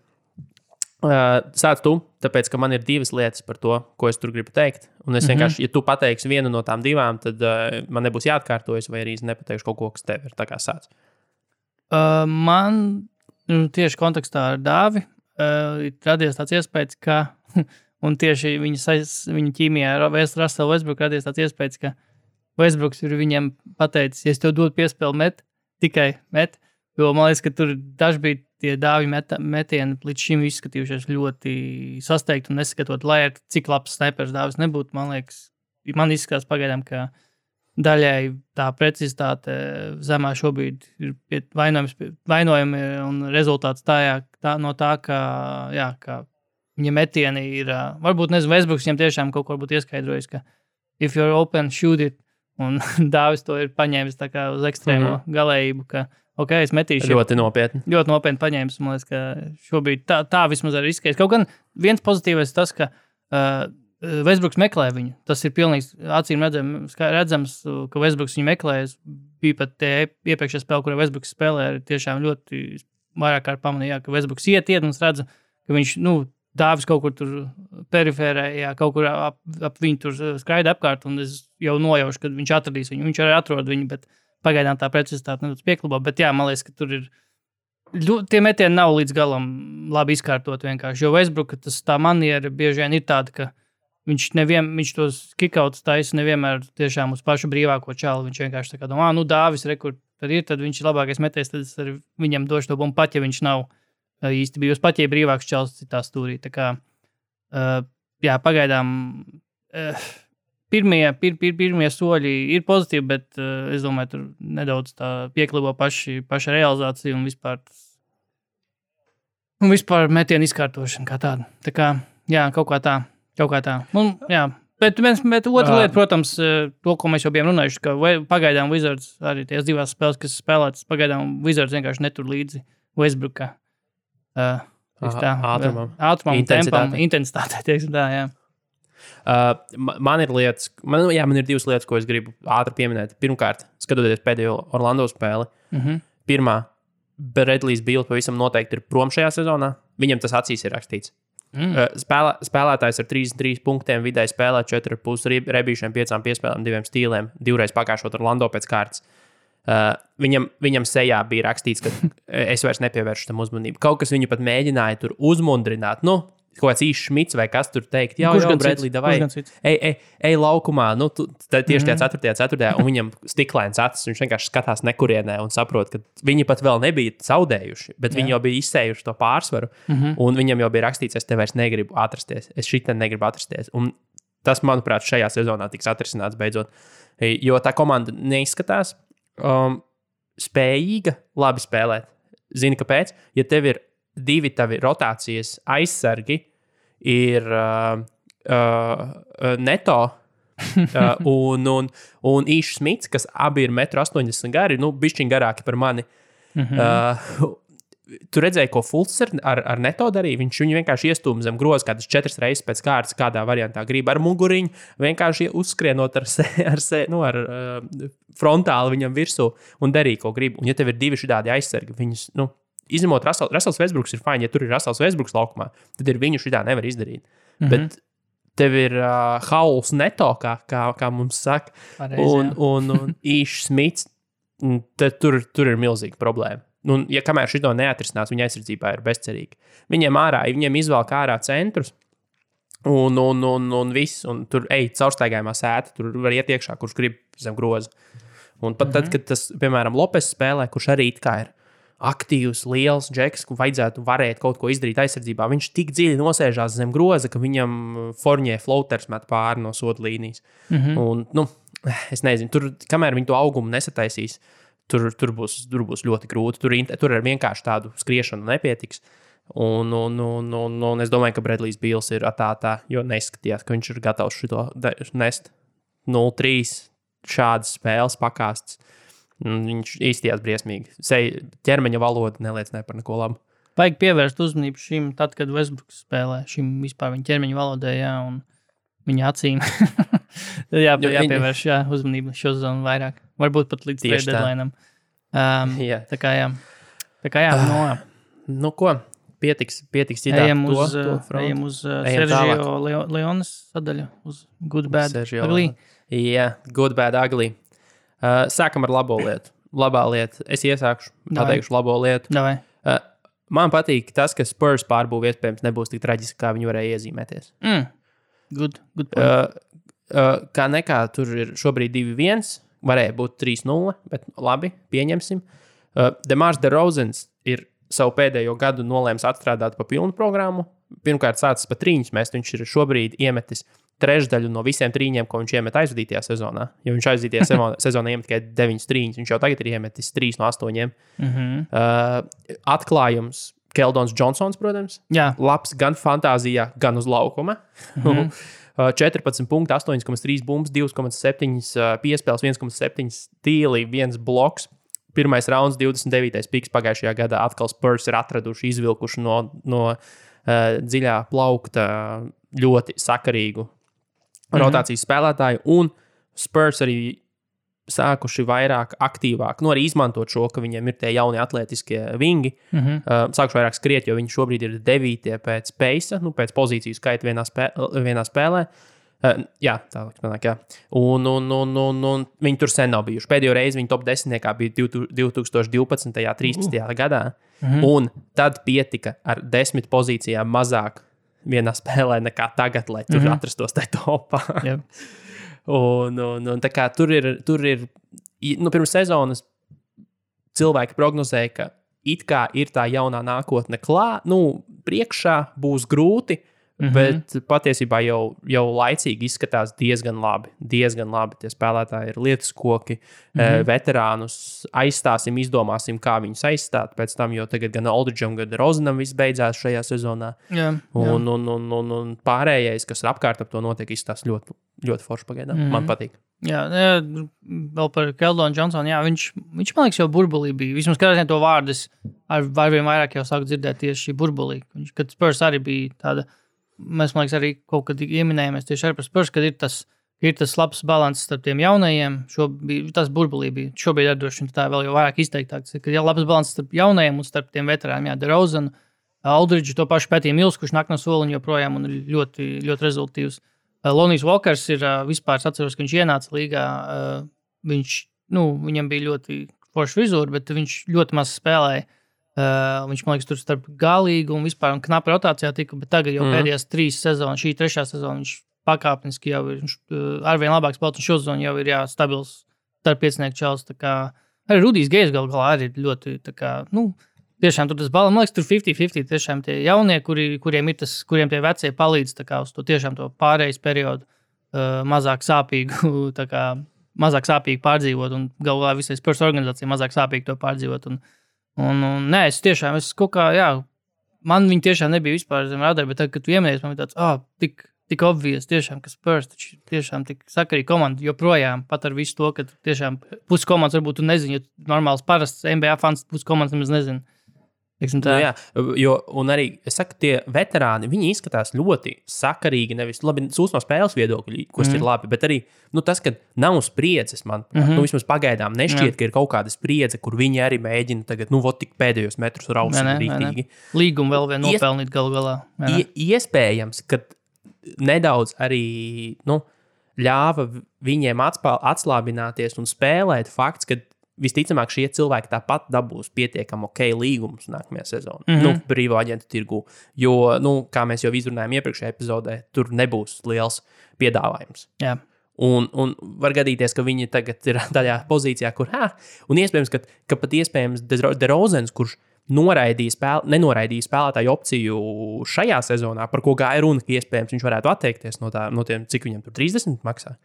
Sāc tu, tāpēc, ka man ir 2 lietas par to, ko es tur gribu teikt. Un es vienkārši, ja tu pateiksi vienu no tām 2, tad man nebūs jāatkārtojas, vai arī es nepateikšu kaut ko, kas tev ir. Tā kā sāc. Man tieši kontekstā ar Dāvi radies tāds iespējas, ka un tieši viņa ķīmijā ar Russell Westbrook radies tāds iespējas, ka Westbrooks ir viņam pateicis, ja es tev dodu piespēli tikai met, jo man liekas, ka tur daži bija tie Dāvi metieni līdz šim izskatījušies ļoti sasteigti un neskatot, lai ar cik labs snipers Dāvis nebūtu, man liekas, man izskatās pagaidām, ka daļai tā precizitāte zemā šobrīd ir vainojumi un rezultāts no tā, ka viņa metieni ir, varbūt nezinu, Westbrooks viņam tiešām kaut ko būtu ieskaidrojis, ka if you're open, shoot it. Un Dāvis to ir paņēmis tā kā uz ekstrēmo galējību, ka, ok, es metīšu. Ļoti nopietni. Ļoti nopietni paņēmis. Man liekas, ka šobrīd tā vismaz arī izskatās. Kaut gan viens pozitīvais tas, ka Westbrooks meklē viņu. Tas ir pilnīgi acīm redzams, ka Westbrooks viņu meklē. Bija pat iepriekšējā spēlē, kurā Westbrooks spēlē, ir tiešām ļoti vairāk kārt pamanīja, ka Westbrooks iet un es redzu, ka viņš, Dāvis kaut kur tur perifērē, kaut kur ap viņu tur skraida apkārt, un es jau nojaušu, ka viņš atradīs viņu. Viņš arī atrod viņu, bet pagaidām tā precizitāte nedaudz pieklubā. Bet jā, man liekas, ka tur ir, tie metieni nav līdz galam labi izkārtot vienkārši. Jo Westbrooka tā maniera bieži vien ir tāda, ka viņš tos kickouts taisa nevienmēr tiešām uz pašu brīvāko čalu. Viņš vienkārši tā kā domā, Dāvis, tad viņš ir labākais metējs, tad es arī viņam došu to bumbu, pat ja viņš nav īsti bijusi pat, ja brīvāks čels citā stūrī. Tā kā, pagaidām pirmie soļi ir pozitīvi, bet es domāju, tur nedaudz tā pieklibo paša realizācija un vispār metienu izkārtošana kā tāda. Tā kā, kaut kā tā. Bet otra lieta, protams, to, ko mēs jau bijām runājuši, ka pagaidām Wizards, arī tās divās spēles, kas spēlētas, pagaidām Wizards vienkārši netur līdzi Westbrooka. Ātrumam, tempam, intensitātei, teiksim tā, jā. Man ir divas lietas, ko es gribu ātri pieminēt. Pirmkārt, skatoties pēdējo Orlando spēli, pirmā, Bradley's Beal pavisam noteikti ir prom šajā sezonā. Viņam tas acīs ir rakstīts. Spēlētājs ar 33 punktiem vidēji spēlē 4,5 rebīšiem, 5 piespēlēm, 2 stīliem, 2 pakāšot Orlando pēc kārtas. Viņam sejā bija rakstīts, ka es vairs nepievēršu tam uzmanību. Kaut kas viņu pat mēģināja tur uzmundrināt. Kaut kāds īsts Šmits vai kas tur teikt. Jā, Bradley, davai, ej laukumā. Tieši tajā 4. un viņam stiklēns acis. Viņš vienkārši skatās nekurienē un saprot, ka viņi pat vēl nebija zaudējuši, bet viņi jau bija izsējuši to pārsvaru. Un viņam jau bija rakstīts, es te vairs negribu atrasties. Es šitien negribu atrasties. Un tas, manuprāt, šajā sezonā tiks atrisināts beidzot. Jo tā komanda neizskatās spējīga labi spēlēt. Zini, kāpēc? Ja tev ir 2 tavi rotācijas aizsargi, ir Neto un Īšs Smits, kas abi ir 1,80 m gari, bišķiņ garāki par mani. Tu redzēji, ko Fultz ar Neto darīja? Viņš viņu vienkārši iestūma zem groza kādas 4 reizes pēc kārtas, kādā variantā grib ar muguriņu, vienkārši uzskrienot ar frontāli viņam virsū un darīja, ko grib. Un ja tev ir 2 šādi aizsargi, viņus, izņemot Russells Westbrooks ir fajn, ja tur ir Russells Westbrooks laukumā, tad ir viņu šitā nevar izdarīt. Bet tev ir Hauls Neto, kā mums saka, un Īšs Smits, tad tur ir milzīga problēma. Ja kamēr šito neatrisinās, viņa aizsardzībā ir bezcerīga. Viņiem izvēlk ārā centrus un viss, un tur caurstaigājumā sēta, tur var iet iekšā, kurš grib zem groza. Un pat tad, kad tas, piemēram, Lopes spēlē, kurš arī it kā ir aktīvs, liels džeks, kur vajadzētu varēt kaut ko izdarīt aizsardzībā, viņš tik dziļi nosēžās zem groza, ka viņam Fournier floaters met pāri no soda līnijas. Un, es nezinu, tur, kamēr viņi to augumu nesataisīs, tur būs ļoti grūti. Tur ar vienkārši tādu skriešanu nepietiks. Un es domāju, ka Bradley's Beals ir tā, jo neizskatījās, ka viņš ir gatavs šito nest 0-3 šādas spēles pakāstas. Viņš īstījās briesmīgi. Ķermeņa valoda neliecināja par neko labu. Vajag pievērst uzmanību šim, tad, kad Westbrooks spēlē, šim vispār viņa ķermeņa valodai, un viņa acīm. Tad jāpievērš uzmanību šo zonu vairāk. Varbūt pat līdz trade deadline'am. Tā kā jā. Ko? Pietiks citā. Ejam uz Sergio Leones sadaļu. Uz Good Bad Ugly. Jā, Good Bad Ugly. Sākam ar labo lietu. Labā lieta. Es iesākšu, pateikšu labo lietu. Man patīk tas, ka Spurs pārbūve iespējams nebūs tik traģiski, kā viņi varēja iezīmēties. Good point. Kā nekā, tur ir šobrīd 2-1, varēja būt 3-0, bet labi, pieņemsim. DeMars DeRozans ir savu pēdējo gadu nolēms atstrādāt pa pilnu programmu. Pirmkārt sācis pa trīņus mest, viņš ir šobrīd iemetis trešdaļu no visiem trīņiem, ko viņš iemet aizvadītajā sezonā. Jo viņš aizvadītajā sezonā iemet tikai 9 trīņus, viņš jau tagad ir iemetis 3 no 8. Atklājums Keldons Johnsons, protams. Jā. Labs gan fantāzijā, gan uz laukuma. 14 punkti, 8,3 bumbas, 2,7 piespēles, 1,7 stīli, 1 bloks. Pirmais rauns, 29. piks pagājušajā gadā. Atkal Spurs ir atraduši, izvilkuši no dziļā plaukta ļoti sakarīgu rotācijas spēlētāju. Un Spurs arī sākuši vairāk aktīvāk, arī izmantot šo, ka viņiem ir tie jaunie atletiskie vingi. Sākuši vairāk skriet, jo viņi šobrīd ir 9. pēc pace, pēc pozīciju skaita vienā spēlē. Jā, tā liekas, jā. Un viņi tur sen nav bijuši. Pēdējo reizi viņi top 10 bija 2012. 13. gadā. Un tad pietika ar 10 pozīcijām mazāk vienā spēlē nekā tagad, lai tur atrastos tajā topā. Yep. Un tā kā tur ir pirms sezonas cilvēki prognozēja, ka it kā ir tā jaunā nākotne priekšā būs grūti, bet patiesībā jau laicīgi izskatās diezgan labi. Tie spēlētāji ir lietuskoki, veterānus aizstāsim, izdomāsim, kā viņus aizstāt pēc tam, jo tagad gan Aldridžam, gan Rozenam viss beidzās šajā sezonā. Jā. Un pārējais, kas ir apkārt ap to notiek, izskatās ļoti, ļoti forši pagaidām. Man patīk. Jā, vēl par Keldonu Johnsonu. Jā, viņš man liekas, jau burbulī bija. Vismaz kādreiz to vārdus arvien vairāk jau sāku dzirdēt tieši šī burbulī. Kad Spurs arī bija tāda, mēs, man liekas, arī kaut kad ieminējāmies tieši ar Spurs, kad ir tas labs balans starp tiem jaunajiem. Tas burbulī bija. Šobrīd ar droši tā vēl jau vairāk izteiktāks. Kad ir labs balans starp jaunajiem un starp tiem veterāniem. Jā, DeRozan, Aldridge, to pašu Pētī Mills, kurš nāk no soliņa joprojām un ir ļoti, ļoti rezultīvs. Lonijs Walkers ir vispār, es atceros, ka viņš ienāca līgā. Viņam bija ļoti forša frizūra, bet viņš ļoti maz spēlēja. Viņš, man liekas, tur starp galīgu un vispār un knapi rotācijā tika, bet tagad jau pēdējās 3 sezonas, šī 3. sezona, viņš pakāpeniski jau ir arvien labāks spēlētājs, un šo sezonu jau ir stabils starp piecinieku čels. Arī Rudijs Gejs galā arī ir ļoti, tiešām tur tas balans, man liekas, tur 50-50 tiešām tie jaunie, kuriem tie vecie palīdz uz to tiešām to pārējais periodu mazāk sāpīgu pārdzīvot un galvā visai Spurs organizācija mazāk sāpīgi to pārdzīvot. Nē, es kaut kā, man viņi tiešām nebija vispār zem radara, bet tagad, kad tu ieminējies, man bija tāds, tik obvious tiešām, ka Spurs tiešām tik sakarīga komanda joprojām, pat ar visu to, ka tiešām pusi komandas varbūt tu nezini, jo normāls parasts NBA fans pusi komandas nemaz nezina. Jā, un arī, es saku, tie veterāni, viņi izskatās ļoti sakarīgi, nevis labi no spēles viedokļi, kas ir labi, bet arī tas, ka nav spriedzes, man, vismaz pagaidām nešķiet, ka ir kaut kāda spriedze, kur viņi arī mēģina tagad, tik pēdējos metrus rausīt rītīgi. Līgumu vēl vien nopelnīt galu galā. Iespējams, ka nedaudz arī, ļāva viņiem atslābināties un spēlēt fakts, ka visticamāk, šie cilvēki tāpat dabūs pietiekami līgumus nākamajā sezonā, brīvā aģentu tirgu. Jo, kā mēs jau izrunājām iepriekšējā epizodē, tur nebūs liels piedāvājums. Jā. Un var gadīties, ka viņi tagad ir tādā pozīcijā, kur, un iespējams, ka pat iespējams DeRozans, kurš nenoraidīja spēlētāju opciju šajā sezonā, par ko gāja runa, ka iespējams viņš varētu atteikties no tiem, cik viņam tur 30 maksā.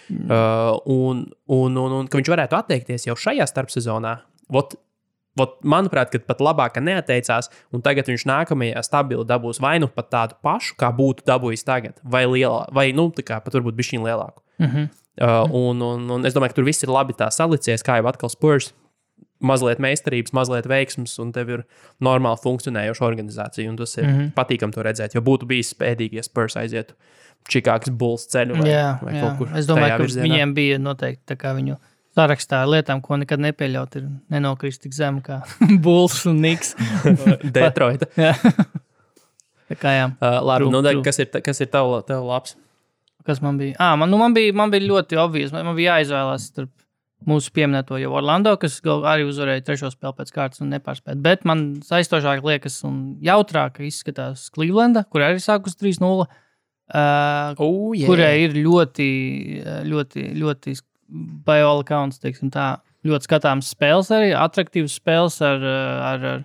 Un ka viņš varētu atteikties jau šajā starpsezonā. Manuprāt, ka pat labāk neatteicās, un tagad viņš nākamajā stabili dabūs vai pat tādu pašu, kā būtu dabūjis tagad, vai lielā, vai pat varbūt bišķiņ lielāku. Un es domāju, ka tur viss ir labi tā salicies, kā jau atkal Spurs, mazliet meistarības, mazliet veiksmes, un tev ir normāli funkcionējoša organizācija, un tas ir patīkam to redzēt, jo būtu bijis spēdīgi, ja Spurs aizietu Čikāgas Bulls ceļu vai kaut kur. Es domāju, ka virzienā. Viņiem bija noteikti tā kā viņu sarakstā ar lietām, ko nekad nepieļaut, ir nenokrist tik zem kā Bulls un Knicks. Detroita. Jā. Tā kā jā. Labi, kas ir tev labs? Kas man bija? Man bija ļoti obvious. Man bija jāizvēlās starp mūsu pieminēto jau Orlando, kas arī uzvarēja 3. spēli pēc kārtas un nepārspēt. Bet man saistošāk liekas un jautrāk izskatās Clevelanda, kur arī sākus 3-0. Kurai ir ļoti, ļoti, ļoti by all accounts, teiksim tā, ļoti skatāms spēles arī, atraktīvs spēles ar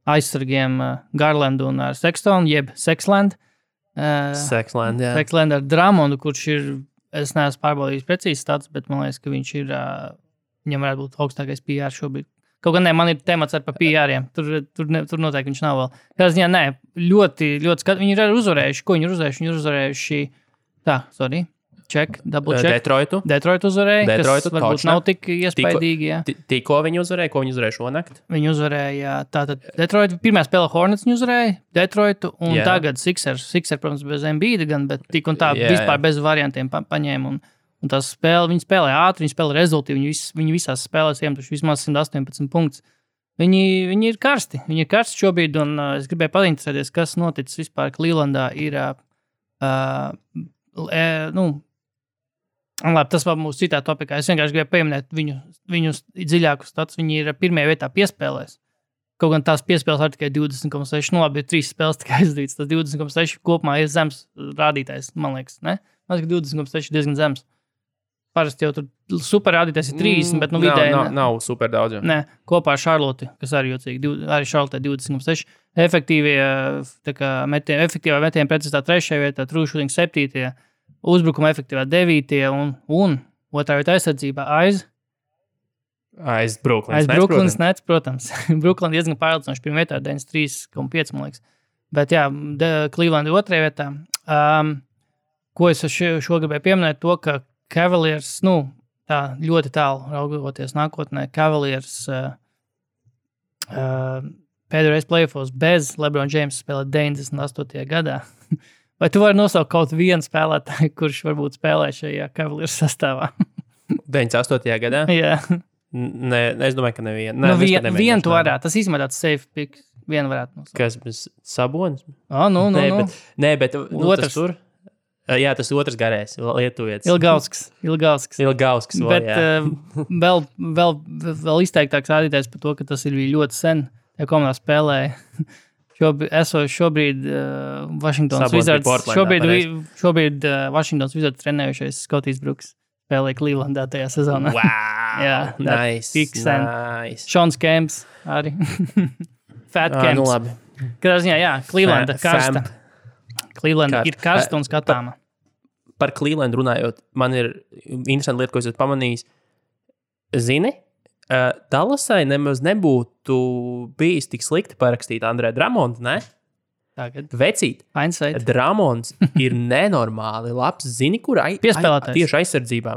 aizsargiem Garlandu un ar Sextonu, jeb Sexland. Sexland, jā. Sexland ar Drummondu, kurš ir, es neesmu pārbaudījis precīzi stats, bet man liekas, ka viņš ir, viņam varētu būt augstākais PR šobrīd Kaut gan man ir temats ar PR-iem. Tur noteikti viņš nav vēl. Kādā ziņā, nē, ļoti viņi ir uzvarējuši. Ko viņi ir uzvarējuši? Viņi ir uzvarējuši, double check. Detroitu uzvarēja, kas varbūt nav tik iespaidīgi. Tikko viņi uzvarēja, ko viņi uzvarēja šonakt? Viņi uzvarēja, tātad Detroitu, pirmā spēle Hornets viņi uzvarēja, Detroitu, un tagad Sixers, protams, bez Embiida gan, bet tik un tā vispār bez variantiem paņēma. Un tās spēle, viņi spēlē ātri, viņi spēlē rezultīvi, viņi visās spēlēs iemetuši vismaz 118 punktus. Viņi ir karsti šobrīd, un es gribēju painteresēties, kas noticis vispār Clevelandā ir, labi, tas vēl mūsu citā topikā. Es vienkārši gribēju pieminēt viņu dziļāku status. Viņi ir pirmajā vietā piespēlēs. Kaut gan tās piespēles ir tikai 20,6. Nu, labi, ir 3 spēles tikai aizdītas. Tas 20,6 kopumā ir zems rādītājs, man liekas, ne? Man liekas, 20,6 diezgan zems. Parasti jau tur super rādītājs ir 30, bet vidēji... Nav super daudz. Jau. Nē, kopā ar Charlotte, kas arī jocīgi, arī Charlotte 20,6. Efektīvā metiena precizitā 3. vietā, true shooting 7. Uzbrukuma efektīvā 9. un otrā vietā aizsardzībā aiz Brooklyns Nets, protams. Brooklyn diezgan pārliecinoši pirmā vietā 93,5, man liekas. Bet jā, Cleveland 2. vietā. Ko es šo gribēju pieminēt, to, ka Cavaliers, tā ļoti tālu raugoties nākotnē, Cavaliers pēdējais playoffs bez LeBron James spēlē 98. gadā. Vai tu vari nosaukt kaut vienu spēlētāju, kurš varbūt spēlē šajā Cavaliers sastāvā? 98. gadā? Jā. Nē, es domāju, ka nevienu. Vienu tu varētu. Tas īstenībā tāds safe pick. Vienu varētu nosaukt. Kas bez Sabonis? Nē, bet otrs tur. Jā, tas otrs garējs, lietuvietis. Ilgausks. Bet vēl izteiktāks rādītājs par to, ka tas ir ļoti sen. Ja komandā spēlēja šobrīd Washingtons Wizards. Šobrīd Washingtons Wizards trenējušies Scotties Brooks spēlēja Clevelandā tajā sezonā. Wow! Jā, nice. Seans Kemps arī. Fat Kemps. Nu labi. Kādā ziņā, jā, Clevelanda karsta. Clevelanda ir karsta un skatāma. Par Cleveland runājot, man ir interesanti lieta, ko es esmu pamanījis. Zini, Dallasai nemaz nebūtu bijis tik slikti parakstīt Andrē Dramondu, ne? Tagad. Vecīt. Dramonds ir nenormāli labs. Zini, kur piespēlētājs. Tieši aizsardzībā.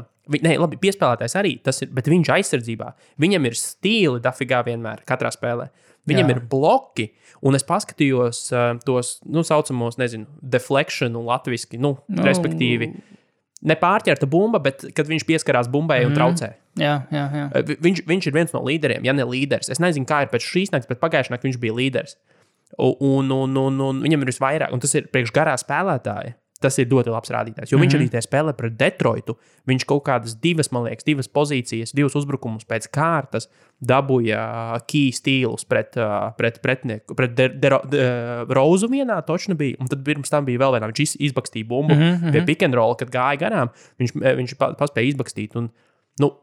Labi, piespēlētājs arī, bet viņš aizsardzībā. Viņam ir stili dafigā vienmēr, katrā spēlē. Viņam ir bloki, un es paskatījos tos, saucamos, deflection latviski, respektīvi, nepārķerta bumba, bet kad viņš pieskarās bumbai un traucē. Jā. Viņš ir viens no līderiem, ja ne līderis. Es nezinu, kā ir pēc šīs nakts, bet pagājušajā naktī viņš bija līderis. Un viņam ir visvairāk, un tas ir priekš garā spēlētāja. Tas ir ļoti labs rādītājs, jo viņš arī tie spēlē pret Detroitu. Viņš kaut kādas divas pozīcijas, 2 uzbrukumus pēc kārtas dabūja key stīlus pret pretinieku. Pret Rozu vienā točni bija, un tad pirms tam bija vēl vienā. Viņš izbakstīja bumbu pie pick and roll, kad gāja garām. Viņš paspēja izbakstīt, un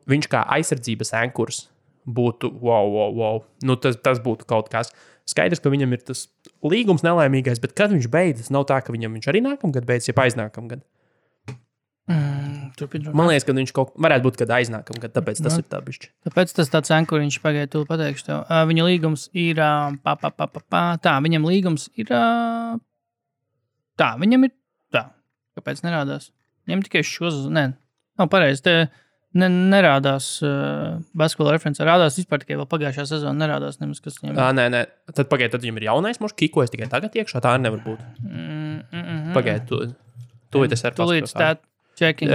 viņš kā aizsardzības ankurs būtu wow. Tas būtu kaut kas. Skaidrs, ka viņam ir tas līgums nelaimīgais, bet kad viņš beidzas, nav tā, ka viņš arī nākamgad beidzas, ja aiznākamgad. Man liekas, ka viņš varētu būt, kad aiznākamgad, tāpēc tas ir tā bišķi. Tāpēc tas tāds ankurs, viņš pagaid, tu pateikšu tev. Viņa līgums ir tā, viņam līgums ir tā, viņam ir tā. Kāpēc nerādās? Viņam tikai nav pareizi, nerādās basketbola referencē. Rādās vispār tikai vēl pagājušā sezona. Nerādās nemaz, kas viņam ir. Nē. Tad viņam ir jaunais mošs, kikojas tikai tagad iekšā. Tā arī nevar būt. Pagaid, tu tas ar paskatās. Checking.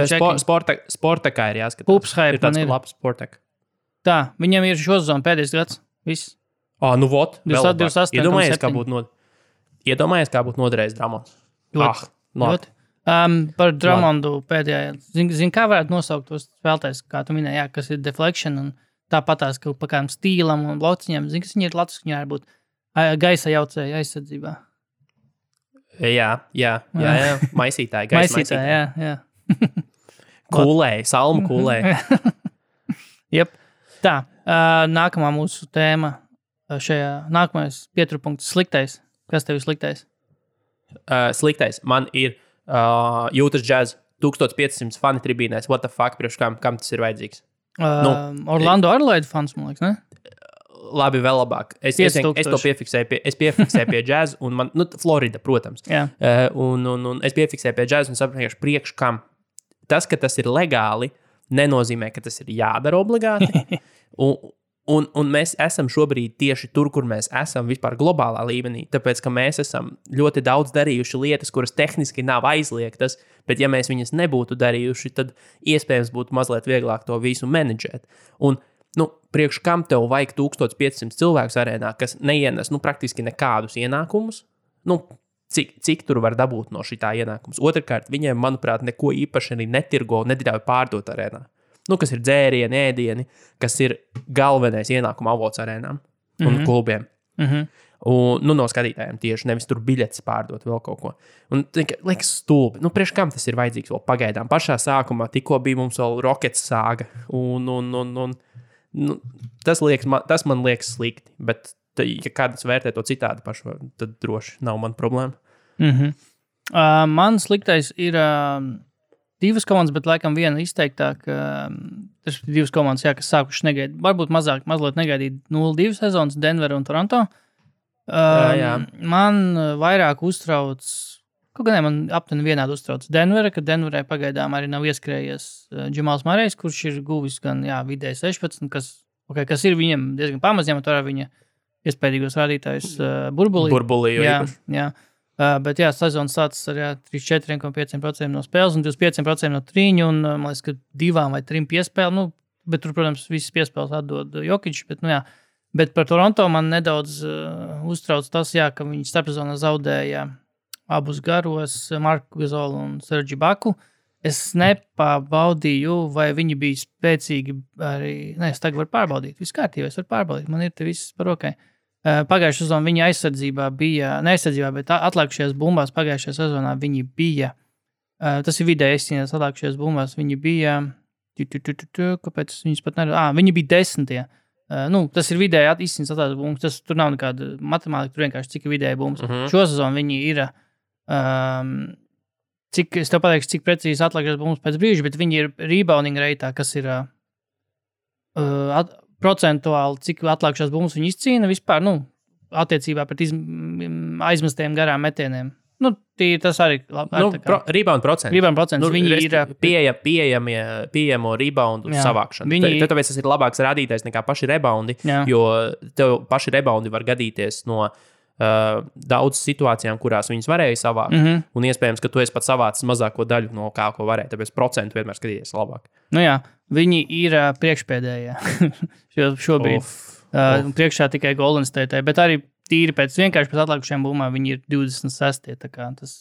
Sportekā ir jāskatās. Pupshype ir tāds labs sportek. Tā, viņam ir šo sezonu pēdējais gads. Viss. Vot. 28. Iedomājies, kā būtu noderējis Dramons. Ļoti. Par Dramondu pēdējā. Zini, kā varētu nosaukt tos spēlētājus, kā tu minēji, kas ir deflection un tāpatās, ka pa kādam stīlam un blociņam. Zini, kas viņi ir Latvijas, viņi var būt gaisa jaucēja aizsardzībā. Jā. Maisītāji, gaisa maisītāji. Jā. Kūlēji, salmu kūlēji. Jep. Tā, nākamā mūsu tēma nākamais pieturpunkts sliktais. Kas tev ir sliktais? Sliktais. Man ir Jūtas Jazz 1500 fani tribīnēs. What the fuck, priekš kam tas ir vajadzīgs? Orlando Adelaide fans, man liekas, ne? labi, vēl labāk. Es to piefiksēju pie džēza, un man, Florida, protams. Un es piefiksēju pie džēza un saprotu, priekš kam. Tas, ka tas ir legāli, nenozīmē, ka tas ir jādara obligāti. Un mēs esam šobrīd tieši tur, kur mēs esam vispār globālā līmenī, tāpēc, ka mēs esam ļoti daudz darījuši lietas, kuras tehniski nav aizliegtas, bet ja mēs viņas nebūtu darījuši, tad iespējams būtu mazliet vieglāk to visu menedžēt. Un, priekš kam tev vajag 1500 cilvēkus arēnā, kas neienes, praktiski nekādus ienākumus? Cik tur var dabūt no šitā ienākums? Otrkārt, viņiem, manuprāt, neko īpaši arī netirgo, neļauj pārdot arēnā. Kas ir dzērieni, ēdieni, kas ir galvenais ienākuma avots arēnām un klubiem. Un, no skatītājiem tieši, nevis tur biļetes pārdot vēl kaut ko. Un liekas stulbi. Priekš kam tas ir vajadzīgs vēl pagaidām? Pašā sākumā tikko bija mums vēl Rockets sāga. Tas man liekas slikti, bet ja kāds vērtē to citādi pašu, tad droši nav man problēma. Man sliktais ir... Divas komandas, bet laikam viena izteiktāk. Tas ir divas komandas, kas sākuši negaidīt. Varbūt mazliet negaidīt 0-2 sezonas Denver un Toronto. Man vairāk uztrauc, kaut gan man aptuveni vienādi uztrauc Denvera, ka Denverai pagaidām arī nav ieskrējies Džamals Murrejs, kurš ir guvis gan vidēji 16, kas ir viņam diezgan pamaz, ņemot vērā viņa iespējīgos rādītājus burbulī. Jā. Bet sezona sācis ar 34,5% no spēles un 25% no trīņu, un man liekas, ka 2 vai 3 piespēli, bet tur, protams, visas piespēles atdod Jokić, bet par Toronto man nedaudz uztrauc tas, ka viņi starpsezonā zaudēja abus garos, Marku Gasolu un Sergi Baku. Es nepārbaudīju, vai viņi bija spēcīgi arī, es tagad varu pārbaudīt, viss kārtībā, es varu pārbaudīt, man ir te viss par rokai. Pagājušajā sezonā viņa aizsardzībā bija, bet atlikušajās bumbās pagājušajā sezonā viņi bija, tas ir vidēji izcīnās atlikušajās bumbās, viņi bija, kāpēc viņas pat neredz, viņi bija 10. Tas ir vidēji izcīnās atlikušajās bumbas, tur nav nekāda matemātika, tur vienkārši cik ir vidēji bumbas. Šo sezonu viņi ir, es tev pateikšu, cik precīzi atlikušajās bumbas pēc brīža, bet viņi ir rebounding reitā, kas ir procentuāli, cik atlikušās bumbas viņi izcīna vispār, attiecībā pret aizmestiem garām metieniem. Tas arī rebound procents. Viņi ir pieejamo reboundu savākšanu. Tāpēc tas ir labāks rādītājs nekā paši reboundi, jo tev paši reboundi var gadīties no daudz situācijām, kurās viņas varēja savākt, un iespējams, ka tu esi pat savācis mazāko daļu no kā, ko varēja, tāpēc procentu vienmēr skatīties labāk. Viņi ir priekšpēdējie šobrīd. Priekšā tikai Golden State, bet arī tīri vienkārši pēc atlikušajām bumbām viņi ir 26. Tā kā tas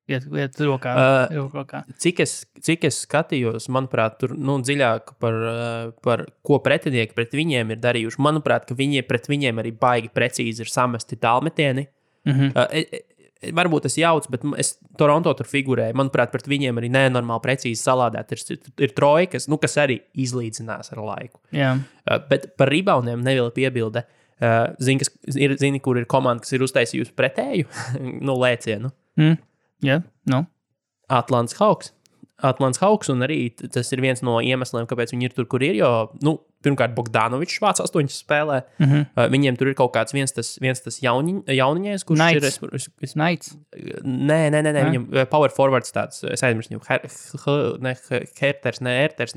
iet rokā. Cik es skatījos, manuprāt, tur dziļāk par ko pretinieki pret viņiem ir darījuši. Manuprāt, ka pret viņiem arī baigi precīzi ir samesti tālmetieni. Varbūt es jaucu, bet Toronto tur figurēju. Manuprāt, pret viņiem arī nenormāli precīzi salādēt. Ir trojkas, kas arī izlīdzinās ar laiku. Bet par reboundiem neviela piebilde. Zini, kur ir komanda, kas ir uztaisījusi pretēju lēcienu? Atlants Hawks, un arī tas ir viens no iemesliem, kāpēc viņi ir tur, kur ir, jo, pirmkārt, Bogdanovičs vāc 8 spēlē. Viņiem tur ir kaut kāds viens tas jauniņais, kurš ir... Knights. Nē, viņam power forwards tāds, es aizmirstu viņu,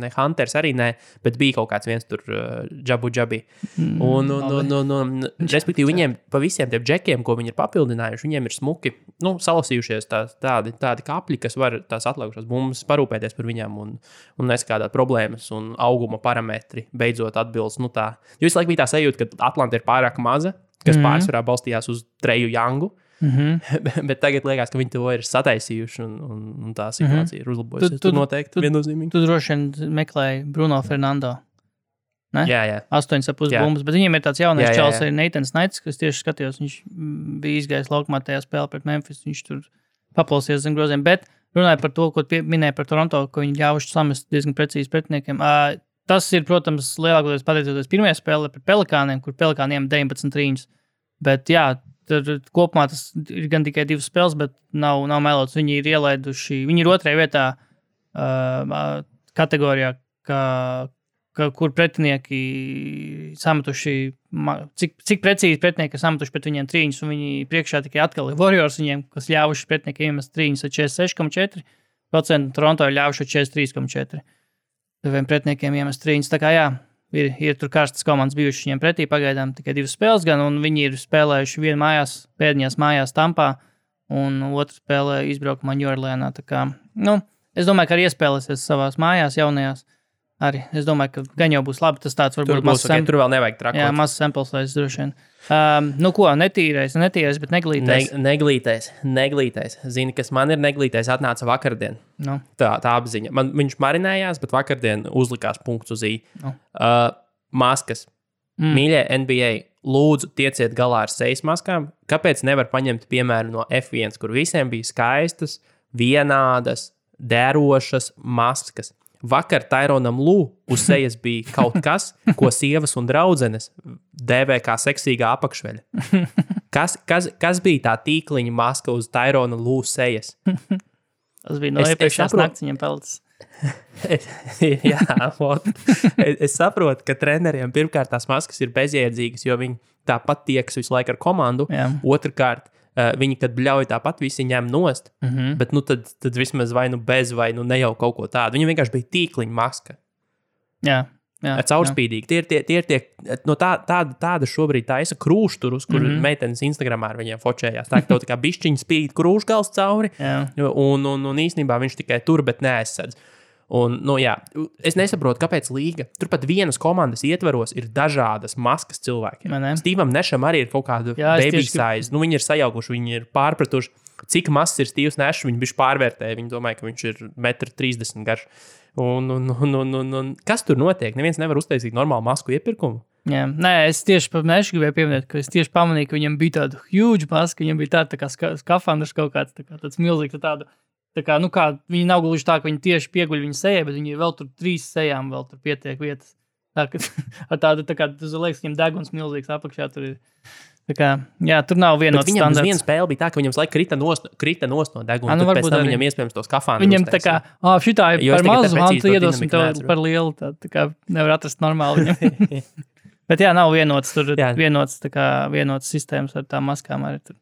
ne Hunters arī nē, bet bija kaut kāds viens tur Džabi. Un respektīvi, viņiem pa visiem tiem džekiem, ko viņi ir papildinājuši, viņiem ir smuki, salasījušies tādi kapļi, kas var tās atlikušās bumbas parūpēties par viņām un neskādāt problēmas un auguma parametri beidzot atbilst. Tā. Jo visu laiku bija tā sajūta, ka Atlanta ir pārāk maza, kas pārsvarā balstījās uz Treju Youngu, bet tagad liekas, ka viņi to ir sataisījuši un tā situācija ir uzlabojusies. Tu noteikti viennozīmīgi. Tu droši vien meklēji Bruno Fernando. Ne? Jā. 8,5 bumbas, bet viņiem ir tāds jaunais čals, arī Natans Knights, kas tieši skatījos, viņš bija izgājis laukumā tajā spēlē pret Memphis, viņš tur paplausies zem groziem, bet runāja par to, ko minēja par Toronto, ko viņi ļāvuši samest diezgan precīzi pretiniekiem. Tas ir, protams, lielākoties pateicoties pirmajā spēlē pret Pelikāniem, kur Pelikāniem 19 trīņus. Bet kopumā tas ir gan tikai 2 spēles, bet nav melots. Viņi ir ielaiduši, viņi ir 2. vietā kategorijā, kā kur pretinieki sametuši, cik precīzi pretinieki ir sametuši pret viņiem trīņus, un viņi priekšā tikai atkal ir Warriors viņiem, kas ļāvuši pretinieki iemest trīņus ar 46,4%, Toronto ir ļāvuši ar 43,4%. Diviem pretiniekiem iemest trīņus, tā kā jā, ir tur karstas komandas bijušas viņiem pretī pagaidām tikai 2 spēles gan, un viņi ir spēlējuši vienu mājās, pēdējās mājās Tampā, un otru spēlē izbraukumā Ņujorlēnā, tā kā, es domāju, ka arī iespēlēsies savās mājās jaunajās. Arī. Es domāju, ka gan jau būs labi. Tas tāds varbūt būs, tur vēl nevajag trakot. Jā, mazs samples vairs droši vien. Netīrais, bet neglītais. Neglītais. Zini, kas man ir neglītais, atnāca vakardien. No. Tā apziņa. Viņš marinējās, bet vakardien uzlikās punkts uz I. No. Maskas. Mīļie NBA, lūdzu, tieciet galā ar sejas maskām. Kāpēc nevar paņemt piemēru no F1, kur visiem bija skaistas, vienādas, dērošas maskas? Vakar Tyronam Lū uz sejas bija kaut kas, ko sievas un draudzenes dēvē kā seksīgā apakšveļa. Kas bija tā tīkliņa maska uz Tyrona Lū sejas? Tas bija no iepriekšējās nakts viņam peltas. Es saprotu, ka treneriem pirmkārt tās maskas ir bezjēdzīgas, jo viņi tāpat tiekas visu laiku ar komandu. Jā. Otrkārt, viņi, kad bļauj tāpat, visi ņem nost, bet tad vismaz vai bez, vai ne jau kaut ko tādu. Viņi vienkārši bija tīkliņa maska. Jā. Caurspīdīgi. Tie ir tie, no tāda šobrīd taisa krūšturus, kur meitenes Instagramā ar viņiem fočējās. Tā kā bišķiņa spīd krūšgals cauri, un īstenībā viņš tikai tur, bet neaizsadz. Un, es nesaprotu, kāpēc līga. Turpat vienas komandas ietveros ir dažādas maskas cilvēkiem. Stevam Nešam arī ir kaut kāda baby size. Viņi ir sajaukuši, viņi ir pārpratuši, cik mazs ir Stevs Nešs. Viņi bišķi pārvērtēja. Viņi domāja, ka viņš ir 1,30 m garš. Un kas tur notiek? Neviens nevar uztaisīt normālu masku iepirkumu. Jā. Nē, es tieši par Nešu gribēju pieminēt, ka es tieši pamanīju, ka viņam bija tāda huge maska. Viņam bija tāda kā skafandrs kaut kāds, tāds milzīgs tādu. Tā kā, viņi nav gluži tā, ka viņi tieši pieguļ viņa sejai, bet viņi vēl tur 3 sejām vēl tur pietiek vietas. Tā kā, tas liekas, viņam deguns milzīgs apakšā tur ir. Tā kā, jā, tur nav vienots standarts. Viņam uz vienu spēli bija tā, ka viņam laik krita nost no deguna, tad pēc tam viņam iespējams tos kafānus. Viņam tā kā, šitā ir par mazu, tu iedosim tev par lielu, tā kā nevar atrast normāli viņam. Bet jā, nav vienots tur, vienots sistēmas ar tām maskām arī tur.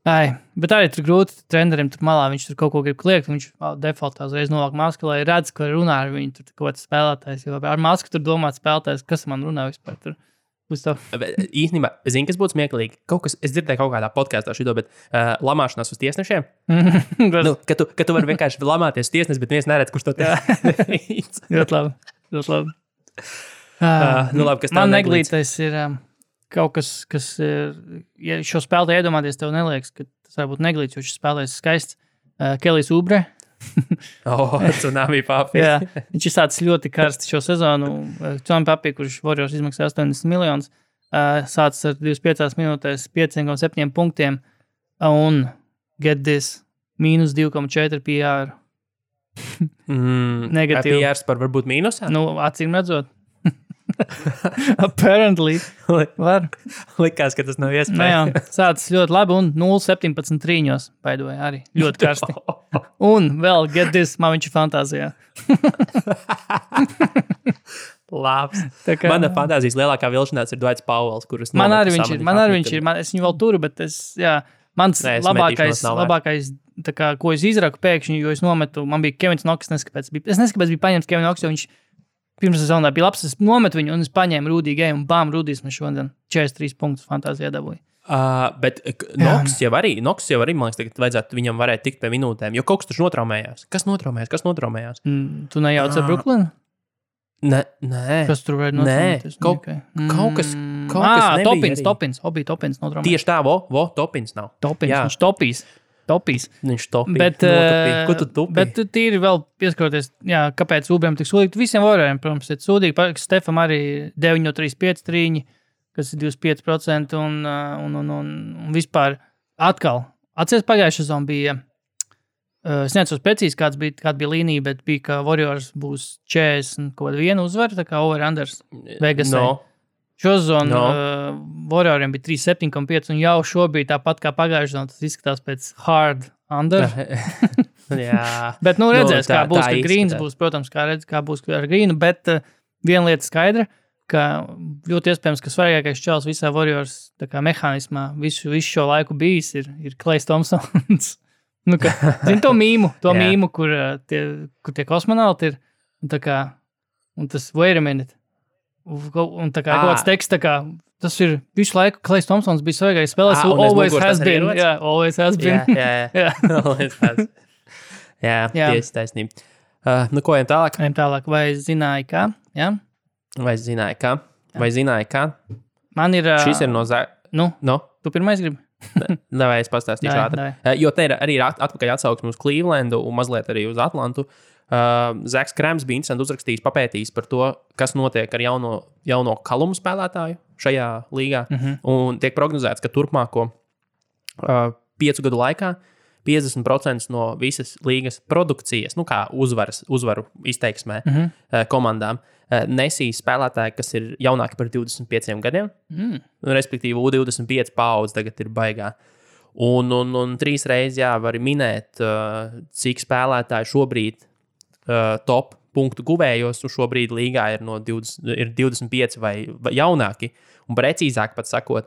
Bet arī tur grūti trenerim tur malā, viņš tur kaut ko grib kliegt, viņš defaultā uzreiz novāk masku, lai redz, ka runā ar viņu tur kaut kāds spēlētājs, jo ar masku tur domāt spēlētājs, kas man runā vispār tur. Īstenībā, zini, kas būtu smieklīgi? Es dzirdēju kaut kādā podkāstā šito, bet lamāšanās uz tiesnešiem. Ka tu vari vienkārši lamāties tiesnes, bet viens neredz, kurš to teic. Ļoti labi. Kas man neglītais ir... Kaut kas ir, ja šo spēlētāju iedomāties, tev neliekas, ka tas var būt neglīts, jo šis spēlētājs skaists. Kelijs Oubre. Tsunami Papi. Jā, viņš ir sācis ļoti karsts šo sezonu. Tsunami Papi, kurš Warriors izmaksā 80 miljonus, sācis ar 25 minūtēs 5,7 punktiem un get this, minus 2,4 PR. Negatīvi. PR par varbūt mīnusā? Acīm redzot. Apparently. Likās, ka tas nav iespējams. Jā, sācis ļoti labi un 0,17 trīņos baidoja arī. Ļoti karsti. Un vēl get this, man viņš ir fantāzijā. Labs. Mana fantāzijas lielākā vilšanās ir Dwights Powells, kurus man arī viņš ir. Es viņu vēl turu, bet mans labākais tā kā, ko es izraku pēkšņi, jo es nometu, man bija Kevins Knox, es neskapēc biju paņemts Kevin Knox, jo viņš pirms sezonā bija labs, es nometu viņu un es paņēmu Rudī Gēju un bām, Rudīs man šodien 43 punktus fantāzijā dabūja. Bet Knox jau arī, man liekas, tagad vajadzētu viņam varēt tikt pie minūtēm, jo kaut kas taču notraumējās. Kas notraumējās? Tu nejauc ar Brooklynu? Nē. Kas tur varētu notraumēties? Kaut kas nebija. Topins notraumējās. Tieši tā, Topins nav. Viņš topīs. Viņš topīja. Ko tu tupīji? Bet tīri vēl pieskaroties, kāpēc Ubriem tik sūdīgi. Visiem Warrioriem, protams, ir sūdīgi. Stefam arī 9,35 trīņi, kas ir 25%. Un vispār atkal. Atceries pagājušā sezona bija, es neatceros precīzi, kāda bija līnija, bet bija, ka Warriors būs 40 kaut kāda viena uzvara, tā kā over-unders Vegasē. Šo sezonu Warrioriem bija 3,7,5 un jau šobrīd tāpat kā pagājušajā sezonā tas izskatās pēc hard under. Jā. Bet redzēs, kā būs, ka Greens būs, protams, kā būs ar Greenu, bet viena lieta skaidra, ka ļoti iespējams, ka svarīgākais čels visā Warriors mehānismā visu šo laiku bijis ir Klejs Thompsons. Zini to mīmu, kur tie kosmonauti ir. Un tas wait a minute. Un kaut kāds teksts, tas ir visu laiku Klejs Thompsons bija svarīgais spēlēs. Always has been. Jā, always has been. Jā. Always has. Jā, tieši taisnība. Ko ejam tālāk? Vai zināji, kā? Jā? Vai zināji, kā? Man ir... Šis ir no No? Tu pirmais gribi? Vai es pastāstīšu ātri. Jo te ir arī atpakaļ atsauksme uz Clevelandu un mazliet arī uz Atlantu. Zaks Krēms bija interesanti uzrakstījis, papētījis par to, kas notiek ar jauno kalumu spēlētāju šajā līgā. Un tiek prognozēts, ka turpmāko 5 gadu laikā 50% no visas līgas produkcijas, kā uzvaru izteiksmē komandām, nesīs spēlētāji, kas ir jaunāki par 25 gadiem. Respektīvi, U25 paudze tagad ir baigā. Un 3 reizes var minēt, cik spēlētāji šobrīd top punktu guvējos, un šobrīd līgā ir 25 vai jaunāki. Un precīzāk pat sakot,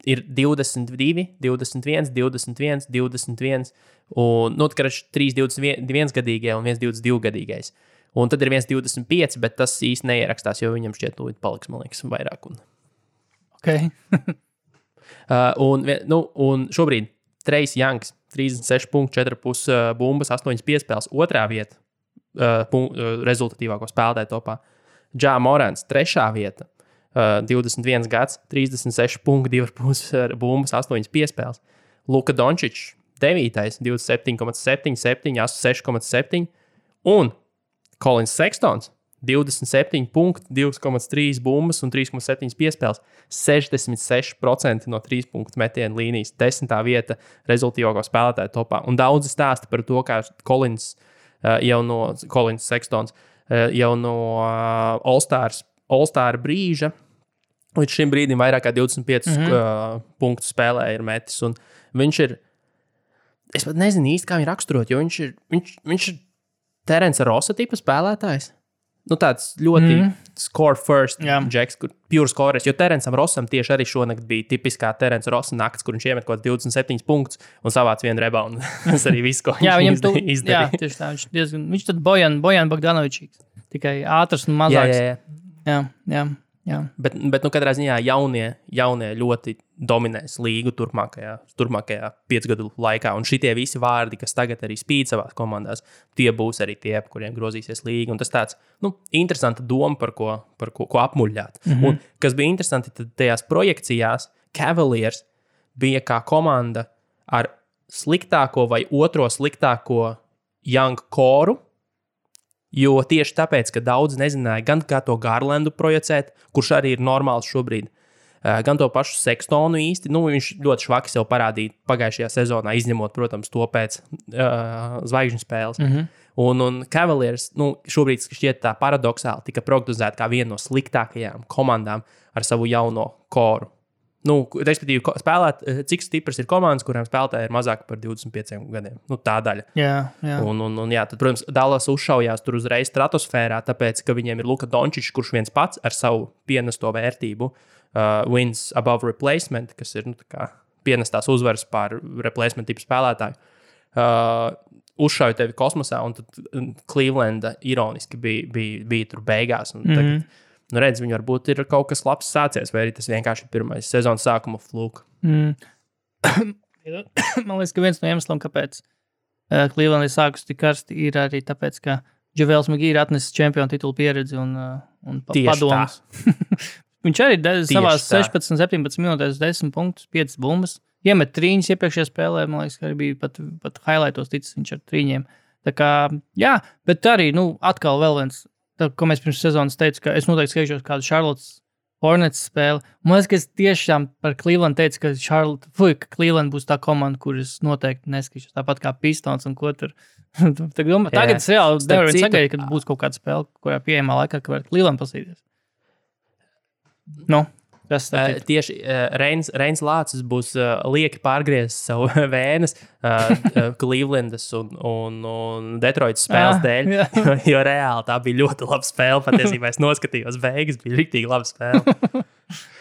ir 22, 21, 21, 21, un ir 3 21-gadīgie un 1 22-gadīgais. Un tad ir 1 25, bet tas īsti neierakstās, jo viņam šķiet, paliks, man liekas, vairāk. Okay. Un šobrīd Trejs Youngs 36,4 bumbas, 8 piespēles, otrā vieta rezultatīvāko spēlētāju topā. Ja Morants 3. vieta, 21 gads, 36,2 bumbas, 8 piespēles. Luka Dončičs 9. 27,7, 6,7 un Kolins Sekstons 27 punkti, 2,3 bumbas un 3,7 piespēles. 66% no 3 punktu metienu līnijas, 10. vieta rezultātīvāko spēlētāju topā. Un daudzi stāsta par to, kā Kolins Sekstons jau no All-Star brīža līdz šim brīdim vairāk kā 25 punktu spēlē ir metis. Un viņš ir, es pat nezinu īsti, kā viņu raksturot, jo viņš ir Terence Rossa tipa spēlētājs. Tāds ļoti score first džeks, kur pure scorers, jo Terencam Rossam tieši arī šonakt bija tipiskā Terence Rossa nakts, kur viņš iemet kaut 27 punktus un savāc vienu reboundu. Tas arī viss, ko viņš izdarīja. Jā, tieši tā. Viņš tad Bojan Bogdanovičs, tikai ātrs un mazāks. Jā. Bet katrā ziņā jaunie ļoti dominēs līgu turpmākajā 5 gadu laikā. Un šitie visi vārdi, kas tagad arī spīd savās komandās, tie būs arī tie, kuriem grozīsies līga. Un tas tāds, interesanta doma, par ko apmuļļāt. Un kas bija interesanti, tad tajās projekcijās Cavaliers bija kā komanda ar sliktāko vai otro sliktāko young koru. Jo tieši tāpēc, ka daudz nezināja gan kā to Garlandu projicēt, kurš arī ir normāls šobrīd, gan to pašu Sekstonu īsti. Viņš ļoti švaki sev parādīja pagājušajā sezonā, izņemot, protams, to pēc zvaigžņu spēles. Un Cavaliers šobrīd šķiet tā paradoxāli tika prognozēta kā viena no sliktākajām komandām ar savu jauno koru. Respektīvi, cik stipras ir komandas, kurām spēlētāji ir mazāk par 25 gadiem. Tā daļa. Jā. Un tad, protams, Dallas uzšaujās tur uzreiz stratosfērā, tāpēc, ka viņiem ir Luka Dončičs, kurš viens pats ar savu pienesto vērtību wins above replacement, kas ir pienestās uzvaras pār replacement tipu spēlētāju. Uzšauja tevi kosmosā, un tad Clevelanda ironiski bija tur beigās. Un tagad, redz, viņi varbūt ir kaut kas labs sācies, vai arī tas vienkārši ir pirmais sezonas sākuma fluka. Man liekas, ka viens no iemesliem, kāpēc Cleveland ir sākus tik karsti, ir arī tāpēc, ka JaVale McGee ir atnesis čempionu titulu pieredzi un padomus. Viņš arī savās 16-17 minūtēs 10 punktus, 5 bumbas. Iemet trīņus iepriekšējā spēlē, man liekas, ka arī bija pat highlightos ticis viņš ar trīņiem. Tā kā, jā, bet arī, atkal vēl viens, ko mēs pirms sezonas teicu, ka es noteikti skatīšos kādu Charlottes Hornets spēli. Man liekas, ka es tiešām par Cleveland teicu, ka Cleveland būs tā komanda, kuras noteikti neskatīšos. Tāpat kā Pistons un ko tur. Tagad es reāli nevaru sagaidīt, kad būs kaut kāda spēle, kurā pieejamā laikā, ka var Cleveland pasīties. Kas tad tieši Reins Lācis būs lieki pārgriezis savu vēnes Clevelandas un Detroitas spēles dēļ, jo reāli tā bija ļoti laba spēle. Patiesībā es noskatījos beigas, bija riktīgi laba spēle.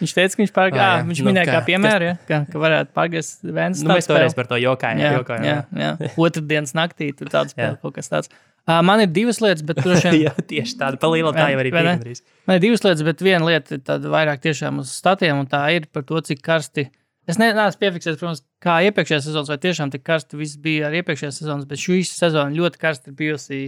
Viņš teica, ka viņš pārgāja, viņš minēja kā piemēru, ka varētu pārgriezt vēnes. Mēs toreiz par to jokājām. Jā. Otrdienas naktī tur tāds spēle, kaut kas tāds. Man ir divas lietas, bet droši vien... Jā, tieši tāda palīla, tā jau arī piekandrīz. Man ir divas lietas, bet viena lieta ir tāda vairāk tiešām uz statiem, un tā ir par to, cik karsti... Es neesmu piefiksējis, protams, kā iepriekšējās sezonas, vai tiešām tik karsti viss bija ar iepriekšējās sezonas, bet šī sezona ļoti karsti ir bijusi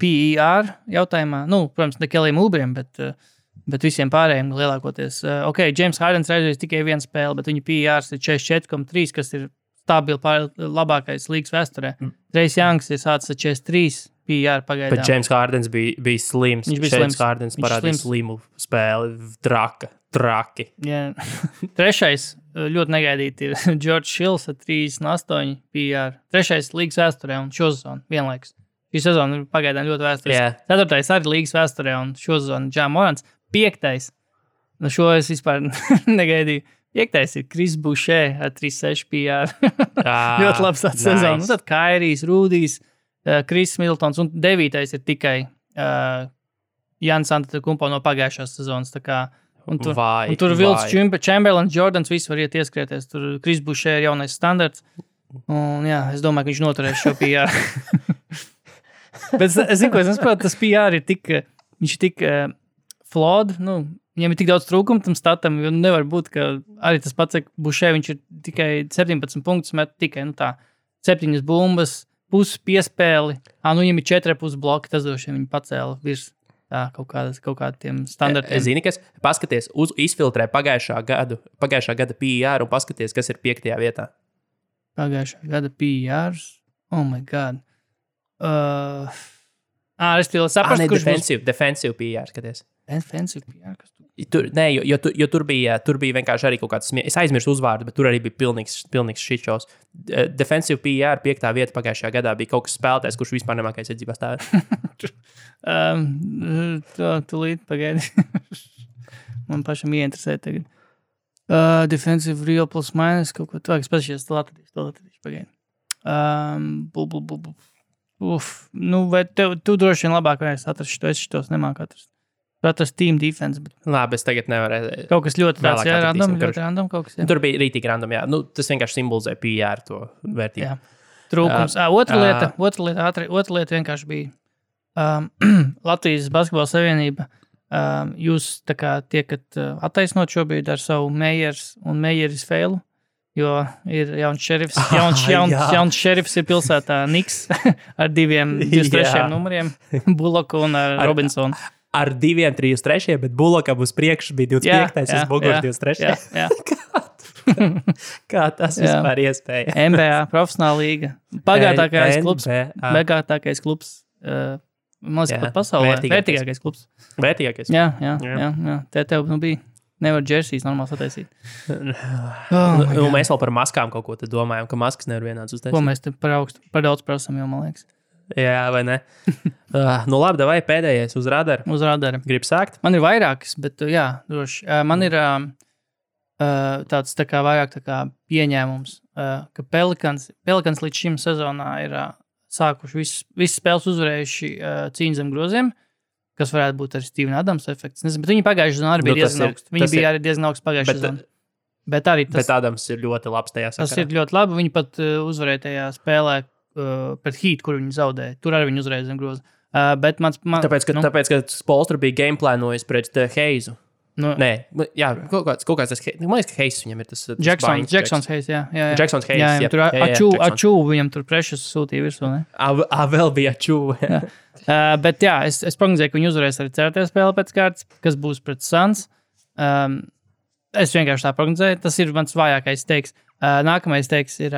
PER jautājumā. Nu, protams, ne Kellijam Ulbriem, bet visiem pārējiem lielākoties. James Hardens reizēs tikai viena spēle, bet viņa PER ir 44,3, kas ir stabili labākais līgas vēsturē. Trace Youngs ir sācis ar 43. PR pagaidām. Bet James Hardens bija slims. Viņš bija James Hardens parādīja slimu spēli. Traki. Jā. Trešais ļoti negaidīti ir George Hills ar 38 PR. Trešais līgas vēsturē un šo sezonu vienlaikus. Šī sezona ir pagaidām ļoti vēsturiska. Ceturtais arī līgas vēsturē un šo sezonu Ja Morants. Piektais. Šo es vispār negaidīju. Piektais ir Chris Boucher ar 36 PR. Ļoti labs tāds sezona. Un tad Kairijs, Rūdijs, Kris Middletons un 9. ir tikai Jānis Antetokounmpo no pagājušās sezonas. Un tur Vilts Chamberlains, Jordans, visi var iet ieskrieties. Tur Chris Boucher ir jaunais standarts. Un jā, es domāju, ka viņš noturēs šo PR. Bet es zinu, ko es nesaprotu, tas PR ir tik, viņš ir tik flawed, viņam ir tik daudz trūkumu tam statam, jo nevar būt, ka arī tas pats, ka Boucher, viņš ir tikai 17 punktus, met tikai, 7 bumbas, pusi piespēli. Viņam ir 4,5 bloki, tas droši vien viņi pacēla virs kaut kādiem standartiem. Zini, kas paskaties, izfiltrē pagājušā gada PR un paskaties, kas ir 5. vietā. Pagājušā gada PR? Oh my God. Es tev saprastu, kurš būs... Defensive PR, skaties. Defensive PR, kas tu... Jo tur bija vienkārši arī kaut kāds es aizmirsu uzvārdu, bet tur arī bija pilnīgs šitšos. Defensive PR 5. vieta pagājušajā gadā bija kaut kas spēlētājs, kurš vispār nemākais iedzīvā stāvēt. Tūlīt pagaidi. Man pašam ieinteresē tagad. Defensive real plus minus, kaut ko tā, es pašies to atradīšu pagaidi. Vai tu droši vien labāk varēsi atrast šito, es šitos nemāku atrast. Tas team defense. Bet... Labi, es tagad nevarēju. Kaut kas ļoti tāds, random kaut kas. Jā. Tur bija rītīgi random, jā. Tas vienkārši simbolizē PR to vērtību. Jā. Trūkums. Otra lieta vienkārši bija Latvijas Basketbola Savienība. Jūs tā kā tiekat attaisnot šobrīd ar savu Meijeris un Meijeris feilu, jo ir jauns šerifs. Jauns šerifs ir pilsētā Niks ar 23 numuriem, Buloku un Robinsonu. Ar 2-3, bet Bulokam uz priekšu bija 25. uz muguras 23. Jā. Kā tas vispār iespēja? NBA, profesionāla līga. Bagātākais klubs. Man liekas, pat pasaulē. Vērtīgākais klubs. Vērtīgākais. Jā. Tev bija. Nevar džersijas normāli sataisīt. Mēs vēl par maskām kaut ko te domājam, ka maskas nevar vienāds uztaisīt. Ko mēs te par daudz prasam, jo man liekas. Jā, vai ne? Labi, davai pēdējais uz radara. Uz radara. Gribu sākt? Man ir vairākas, bet jā, droši. Man ir tāds tā kā vairāk tā kā pieņēmums, ka Pelicans līdz šim sezonā ir sākuši visas spēles uzvarējuši cīņu zem groziem, kas varētu būt arī Steven Adams efekts. Nezinu, bet viņi pagājušā sezonā arī bija diezgan augsts. Viņi bija arī diezgan augsts pagājušā sezonā. Bet Adams ir ļoti labs tajā sakarā. Tas ir ļoti labi. Viņi pat uzvarēja tajā spēlē pret Heat, kur viņi zaudēja. Tur arī viņi uzreiz zem groza. Bet tāpēc, ka Spolstra bija gameplānojis pret Heizu. Nē, jā, kaut kāds tas, man liekas, ka Heizs viņam ir tas... Jacksons Heizs, jā. Jacksons Heizs, jā. Tur Ačū viņam tur prešas sūtīja virsū, ne? Vēl bija Ačū. Bet jā, es prognozēju, ka viņi uzvarēs arī cerētajā spēlē pēc kārtas, kas būs pret Suns. Es vienkārši tā prognozēju, tas ir mans vājākais teiks. Nākamais teiks ir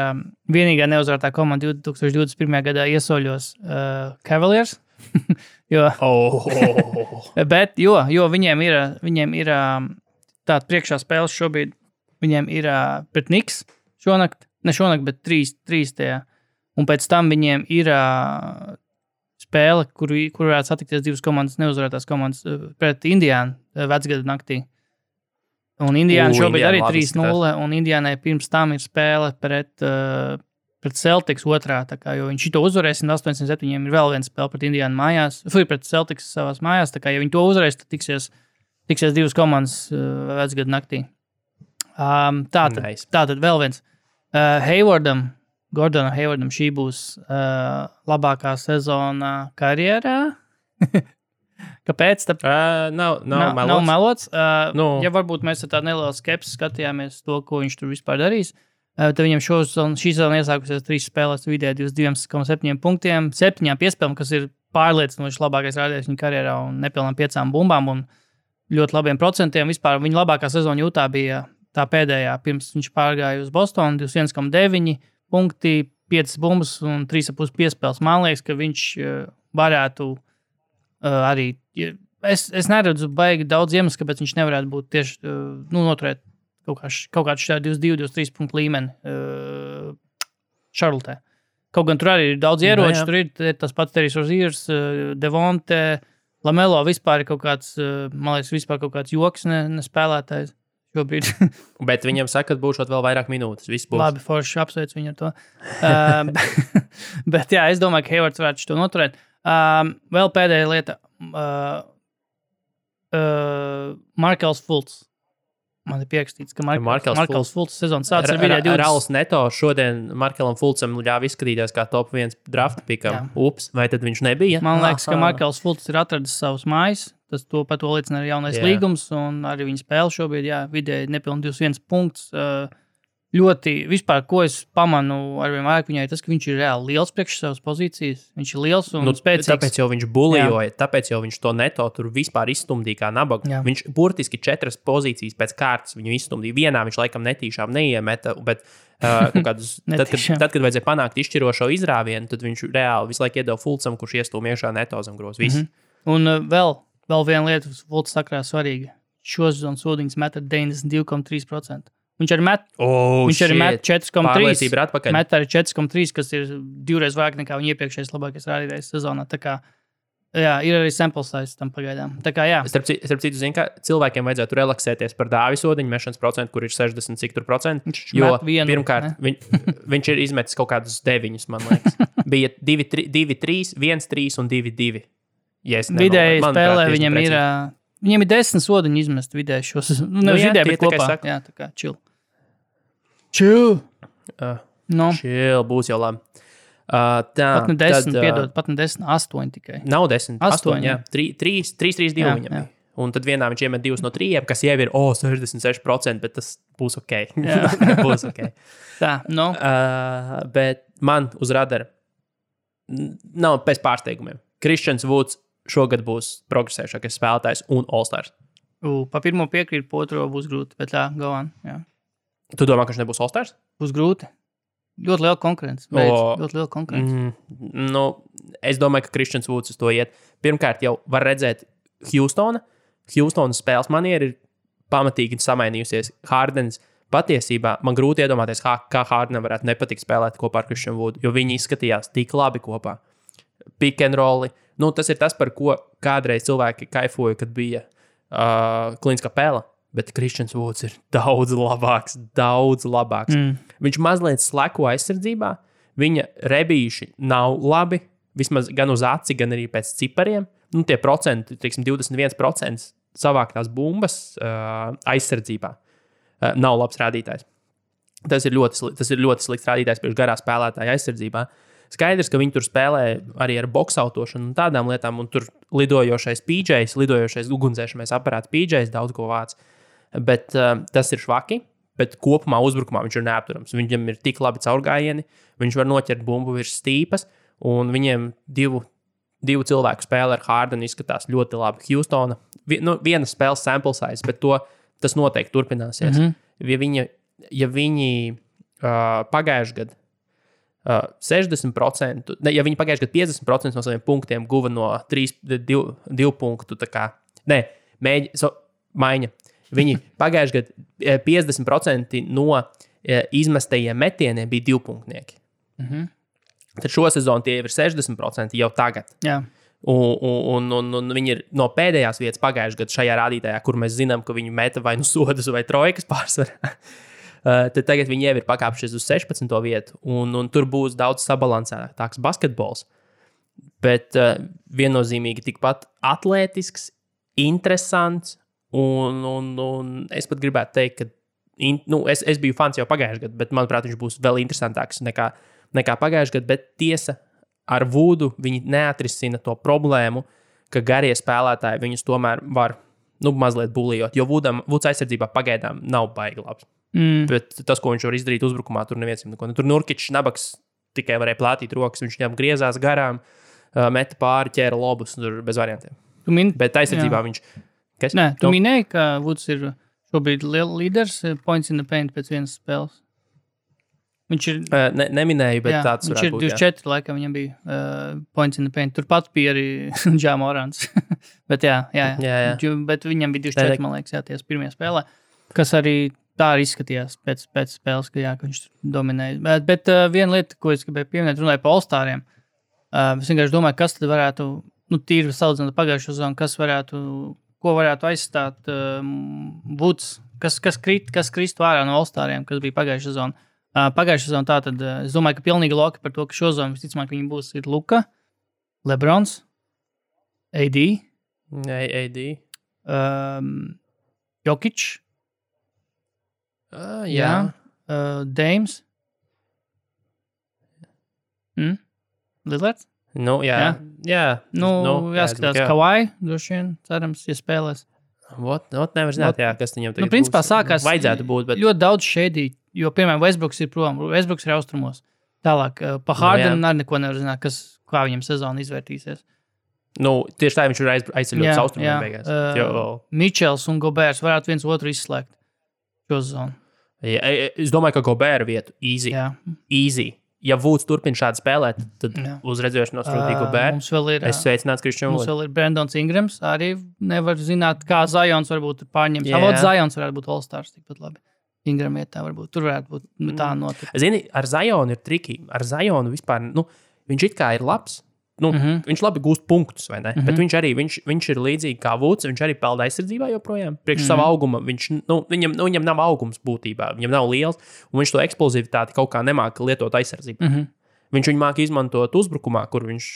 vienīgā neuzvarētā komanda 2021. gadā iesoļos Cavaliers. Bet viņiem ir tāda priekšā spēles šobrīd. Viņiem ir pret Knicks ne šonakt, bet 3 tajā. Un pēc tam viņiem ir spēle, kur varētu satikties divas komandas, neuzvarētās komandas pret Indiānu vecgada naktī. Un Indiāna šobrīd arī 3-0, un Indiānai pirms tam ir spēle pret Celtics otrā, jo viņš to uzvarēs, 187 ir vēl viena spēle pret Indiānu mājās, pret Celtics savās mājās, ja viņi to uzvarēs, tad tiksies divas komandas vecgadu naktī. Tātad vēl viens. Gordonam Haywardam šī būs labākā sezona karjerā. Kāpēc? Nav melots. Ja varbūt mēs ar tādu nelielu skepsi skatījāmies to, ko viņš tur vispār darīs, tad viņam šī sezona iesākusies 3 spēlēs vidēji 22,7 punktiem, 7 piespēlēm, kas ir pārliecinoši labākais rādījums viņa karjerā un nepilnām 5 bumbām un ļoti labiem procentiem. Vispār viņa labākā sezona Jūtā bija tā pēdējā, pirms viņš pārgāja uz Bostonu, 21,9 punkti, 5 bumbas un 3,5 piespēles. Man liekas, ka viņš varētu arī, es neredzu baigi daudz iemeslu, kāpēc viņš nevarētu būt tieši noturēt kaut kādu šādu 22-23 punktu līmeni Šarlotē. Kaut gan tur arī ir daudz ieroču, tur ir tas pats Terijs Rozīrs, Devonte, Lamelo vispār ir kaut kāds, man liekas, vispār kaut kāds joks nespēlētājs šobrīd. Bet viņam saka, ka būšot vēl vairāk minūtes. Viss būs. Labi, forši apsveic viņu ar to. Bet jā, es domāju, ka Haywards varētu to noturēt. Vēl pēdējā lieta. Markels Fultz. Man ir pierakstīts, ka Markels Fultz sezonas sācis ar vidēji 20. Rauls Neto šodien Markelam Fultzam ļāva izskatīties kā top 1 draft pikam. Ups, vai tad viņš nebija? Man liekas, ka Markels Fultz ir atradis savus mājas. Par to liecina arī jaunais līgums un arī viņa spēle šobrīd, vidēji nepilni 21 punkts. Ļoti, vispār, ko es pamanu arvien vairāk viņai, tas, ka viņš ir reāli liels priekš savas pozīcijas. Viņš ir liels un spēcīgs. Tāpēc jau viņš bulijoja, tāpēc jau viņš to Neto tur vispār izstumdīja kā nabagu. Viņš burtiski 4 pozīcijas pēc kārtas viņu izstumdīja. Vienā viņš laikam netīšām neiemeta, bet tad, kad vajadzēja panākt izšķirošo izrāvienu, tad viņš reāli visu laiku iedeva Fultzam, kurš iestūm iekšā Neto zem grozs. Un vēl viena lieta, Fultz sakrā svarīga. Šo sezonu sodiņas met ar 92,3%. Viņš arī met 4,3. Met arī 4,3, kas ir 2 reizes vairāk nekā viņa iepriekšējais labākais rādītājs sezonā. Tā kā, ir arī sample size tam pagaidām. Tā kā, Starp citu, zini, ka cilvēkiem vajadzētu relaksēties par Dāvi sodiņu mešanas procentu, kur ir 60 cik tur procentu. Jo pirmkārt, viņš ir izmetis kaut kādus 9, man liekas. Bija 2-3, 1-3 un 2-2. Vidēji spēlē viņam ir... Viņiem ir 10 sodiņu izmest vidēji šos. Nevis vidēji, bet kopā. Jā, tā kā chill. Chill! Chill, būs jau labi. Pat ne 10, piedod, pat ne 10, 8 tikai. Nav 10, 8, jā. 3-3-2 viņam bija. Un tad vienā viņš iemet 2 no 3, kas jau ir 66%, bet tas būs ok. Būs ok. Tā, bet man uz radara nav pēc pārsteigumiem. Kristians Vuds šogad būs progresējušākais spēlētājs un All-Stars. Pa pirmo piekrīt, pa otro būs grūti, bet go on. Jā. Tu domā, ka viņš nebūs All-Stars? Būs grūti. Ļoti liela konkurence. Ļoti liela konkurence. Es domāju, ka Kristians Vuds uz to iet. Pirmkārt, jau var redzēt Houstonas spēles maniera ir pamatīgi samainījusies. Hardens patiesībā man grūti iedomāties, kā Hardenam varētu nepatikt spēlēt kopā ar Kristianu Vudu, jo viņi izskatījās tik labi kopā. Pick and rolli. Tas ir tas, par ko kādreiz cilvēki kaifoja, kad bija Klīns Kapela, bet Kristians Vuds ir daudz labāks. Viņš mazliet sleko aizsardzībā, viņa rebīši nav labi, vismaz gan uz aci, gan arī pēc cipariem. Tie procenti, 21% savāktās bumbas aizsardzībā nav labs rādītājs. Tas ir ļoti slikts rādītājs priekš garā spēlētāja aizsardzībā. Skaidrs, ka viņi tur spēlē arī ar boksautošanu un tādām lietām, un tur lidojošais PJs, lidojošais ugunsdzēšamais aparāts PJs daudz ko vāc. Bet tas ir švaki, bet kopumā uzbrukumā viņš ir neapturams. Viņam ir tik labi caurgājieni, viņš var noķert bumbu virs stīpas, un viņiem divu cilvēku spēle ar Hardenu izskatās ļoti labi. Houstona, viena spēles sample size, bet tas noteikti turpināsies. Ja viņi pagājuši gadu 60%, ja viņi pagājuši gadu 50% no saviem punktiem guva no 2 punktu, maiņa. Viņi pagājuši gadu 50% no izmestajiem metieniem bija 2 punktnieki. Tad šo sezonu tie ir 60% jau tagad. Jā. Un viņi ir no pēdējās vietas pagājušajā gadā šajā rādītājā, kur mēs zinām, ka viņi meta vai nu sodus vai trojkas pārsvarā. Tad tagad viņi jau ir pakāpšies uz 16. vietu, un tur būs daudz sabalansētāks basketbols. Bet viennozīmīgi tikpat atlētisks, interesants, un es pat gribētu teikt, ka es biju fans jau pagājušajā gadā, bet manuprāt, viņš būs vēl interesantāks nekā pagājušajā gadā, bet tiesa, ar Vudu viņi neatrisina to problēmu, ka garie spēlētāji viņus tomēr var mazliet bulijot, jo Vuds aizsardzībā pagaidām nav baigi labs. Bet tas, ko viņš var izdarīt uzbrukumā, tur neviens neko. Tur Nurkičs Nabaks tikai varēja plātīt rokas, viņš viņam griezās garām, meta pāri, ķēra lobus, tur bez variantiem. Bet aizsardzībā viņš... Kas? Nē, tu minēji, ka Vuds ir šobrīd līderis points in the paint pēc vienas spēles. Viņš ir... Neminēju, bet tāds varētu būt. Viņš ir 24, laikam viņam bija points in the paint. Turpat bija arī Ja Morants. Bet jā. Bet viņam bija 24, man liekas, ties pirmajā spēlē. Kas arī tā arī izskatījās pēc spēles, ka viņš dominēja. Bet viena lieta, ko es gribēju pieminēt, runāju par All-Stariem. Es vienkārši domāju, kas tad varētu, tīri salīdzinot pagājušo sezonu, ko varētu aizstāt Vuds, kas kristu ārā no All-Stariem, kas bija pagājušo sezonu. Pagājušā sezonā tātad, es domāju, ka pilnīgi loki par to, ka šo zonu visticamāk viņi būs ir Luka, Lebrons, AD, Jokic, Dames, Lillards. Jāskatās Kawhi, droši vien, cerams, ja spēlēs. Nevar zināt, kas viņam tagad principā sākās vajadzētu būt. Bet... Ļoti daudz šēdī, jo, piemēram, Westbrooks ir prom, Westbrooks ir austrumos. Tālāk, pa Hardenam arī neko nevar zināt, kā viņam sezona izvērtīsies. Tieši tā viņš ir aizceļots austrumiem beigās. Mičels un Gobērs varētu viens otru izslēgt šo sezonu. Es domāju, ka Gobēra vietu easy. Ja Vuds turpina šādi spēlēt, tad uz redzēšanos rūtīgi Gobēru. Es sveicināts Kristian Vuds. Mums vēl ir Brandons Ingrams. Arī nevar zināt, kā Zions varbūt pārņems. Zions varētu būt All-Stars tikpat labi. Ingram vietā varbūt. Tur varētu būt tā notika. Zini, ar Zionu ir triki. Ar Zionu vispār, viņš it kā ir labs. Viņš labi gūst punktus, vai ne? Bet viņš ir līdzīgi kā Vuds. Viņš arī pelda aizsardzībā joprojām. Priekš sava auguma. Viņam nav augums būtībā. Viņam nav liels. Un viņš to eksplozivitāti kaut kā nemāka lietot aizsardzībā. Viņš viņu māca izmantot uzbrukumā, kur viņš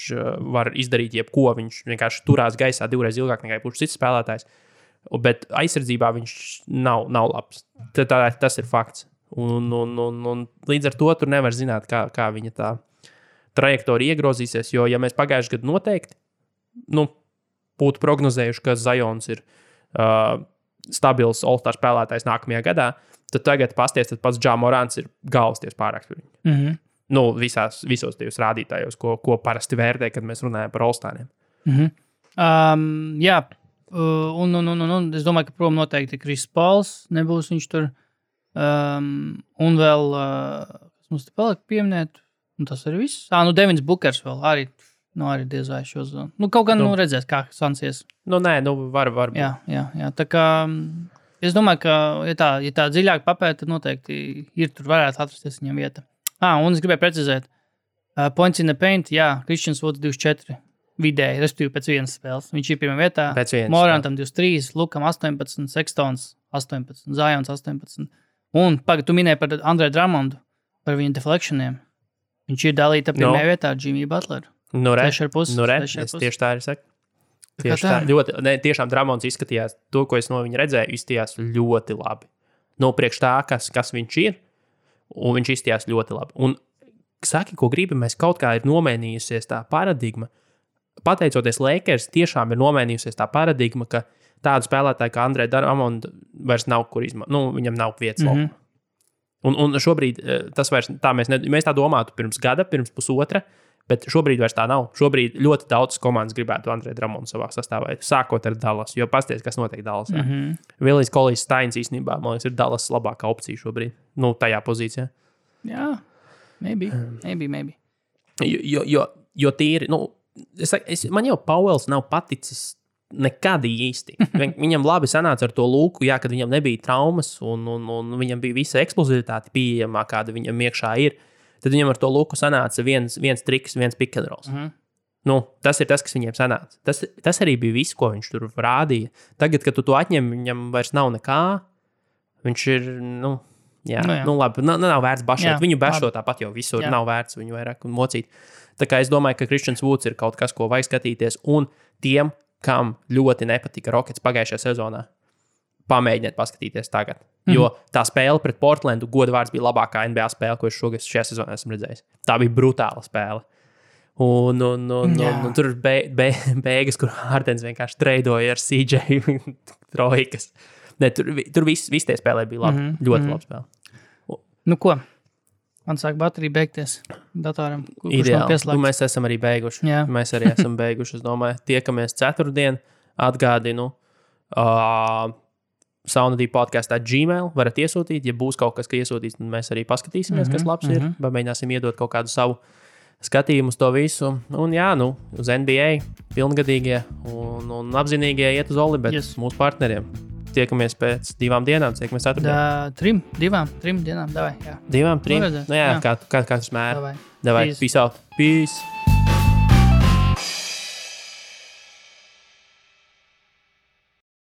var izdarīt jebko. Viņš vienkārši turās gaisā divreiz ilgāk nekā jebkurš cits spēlētājs. Bet aizsardzībā viņš nav labs. Tas ir fakts. Un līdz ar to tur nevar zināt, kā viņa tā trajektorija iegrozīsies, jo, ja mēs pagājušajā gadā noteikti būtu prognozējuši, ka Zions ir stabils All-Star spēlētājs nākamajā gadā, tad tagad pasties, tad pats Ja Morants ir galvasties pārāk par viņu. Visos tajos rādītājos, ko parasti vērtē, kad mēs runājam par All-Stariem. Jā, un es domāju, ka prom noteikti Kris Pauls nebūs viņš tur. Un vēl, kas mums te paliek pieminēt, un tas ir viss. Devins Bukers vēl arī diez vai šo zonu. Kaut gan redzēs, kā sansies. Var būt. Jā. Tā kā es domāju, ka, ja tā dziļāk papēta, tad noteikti ir tur varētu atrasties viņam vieta. Un es gribēju precizēt. Points in the paint, Kristians Vuds 24 vidēji, respektīvi pēc vienas spēles. Viņš ir pirmā vietā. Morantam 23, Lukam 18, Sextons 18, Zions 18. Un, tu minēji par Andre Drummondu, par viņa deflectioniem. Viņš ir dalīta pirmajā vietā ar Jimmy Butleru. Es tieši tā arī saku. Tiešām Drummonds izskatījās, to, ko es no viņa redzēju, izskatījās ļoti labi. Priekš tā, kas viņš ir, un viņš izskatījās ļoti labi. Un saki, ko gribi, mēs kaut kā ir nomainījusies tā paradigma. Pateicoties Lakers, tiešām ir nomainījusies tā paradigma, ka tādu spēlētāju kā Andre Drummonds vairs nav kur izmantot. Viņam nav vietas laukumā. Un šobrīd tas vairs tā mēs tā domātu pirms gada, pirms pusotra, bet šobrīd vairs tā nav. Šobrīd ļoti daudz komandas gribētu Andre Drummondu savā sastāvā, sākot ar Dallas, jo pasties, kas notiek Dallasā. Willis Collies Steins īstenībā, man liekas, ir Dallas labākā opcija šobrīd, tajā pozīcijā. Jā, maybe. Jo tīri, man jau Pauels nav paticis nekad īsti. Viņam labi sanāca ar to Luku, kad viņam nebija traumas un viņam bija visa eksplozivitāte pieejamā, kāda viņam iekšā ir. Tad viņam ar to Luku sanāca viens triks, viens pick and rolls. Tas ir tas, kas viņiem sanāca. Tas arī bija viss, ko viņš tur rādīja. Tagad, kad tu to atņem, viņam vairs nav nekā. Viņš ir, labi, nav vērts bašot. Viņu bašot tāpat jau visur, nav vērts viņu vairāk mocīt. Tā kā es domāju, ka Christians Woods ir kaut kas, ko vajag skatīties. Un tiem, kam ļoti nepatika Rockets pagājušajā sezonā, pamēģiniet paskatīties tagad. Jo tā spēle pret Portlandu, godu vārds, bija labākā NBA spēle, ko es šajā sezonā esmu redzējis. Tā bija brutāla spēle. Un tur ir beigas, kur Hardens vienkārši treidoja ar CJ trojkas. Tur viss tie spēlē bija labi. Ļoti labi spēle. Ko? Man sāk baterija beigties datoram. Ideāli. Mēs esam arī beiguši. Jā. Mēs arī esam beiguši, es domāju. Tiekamies ceturtdien. Atgādinu. Saunadī podkastā Gmail varat iesūtīt. Ja būs kaut kas, ka iesūtīs, tad mēs arī paskatīsimies, kas labs ir. Mēģināsim iedot kaut kādu savu skatījumu uz to visu. Un uz NBA pilngadīgie un apzinīgie iet uz Oli, bet mūsu partneriem. Tiekamies pēc 2 dienām, tiekamies ceturtdien. 3 dienām, davai, jā. 2, 3? Kā tas mēr. Davai, peace out. Peace.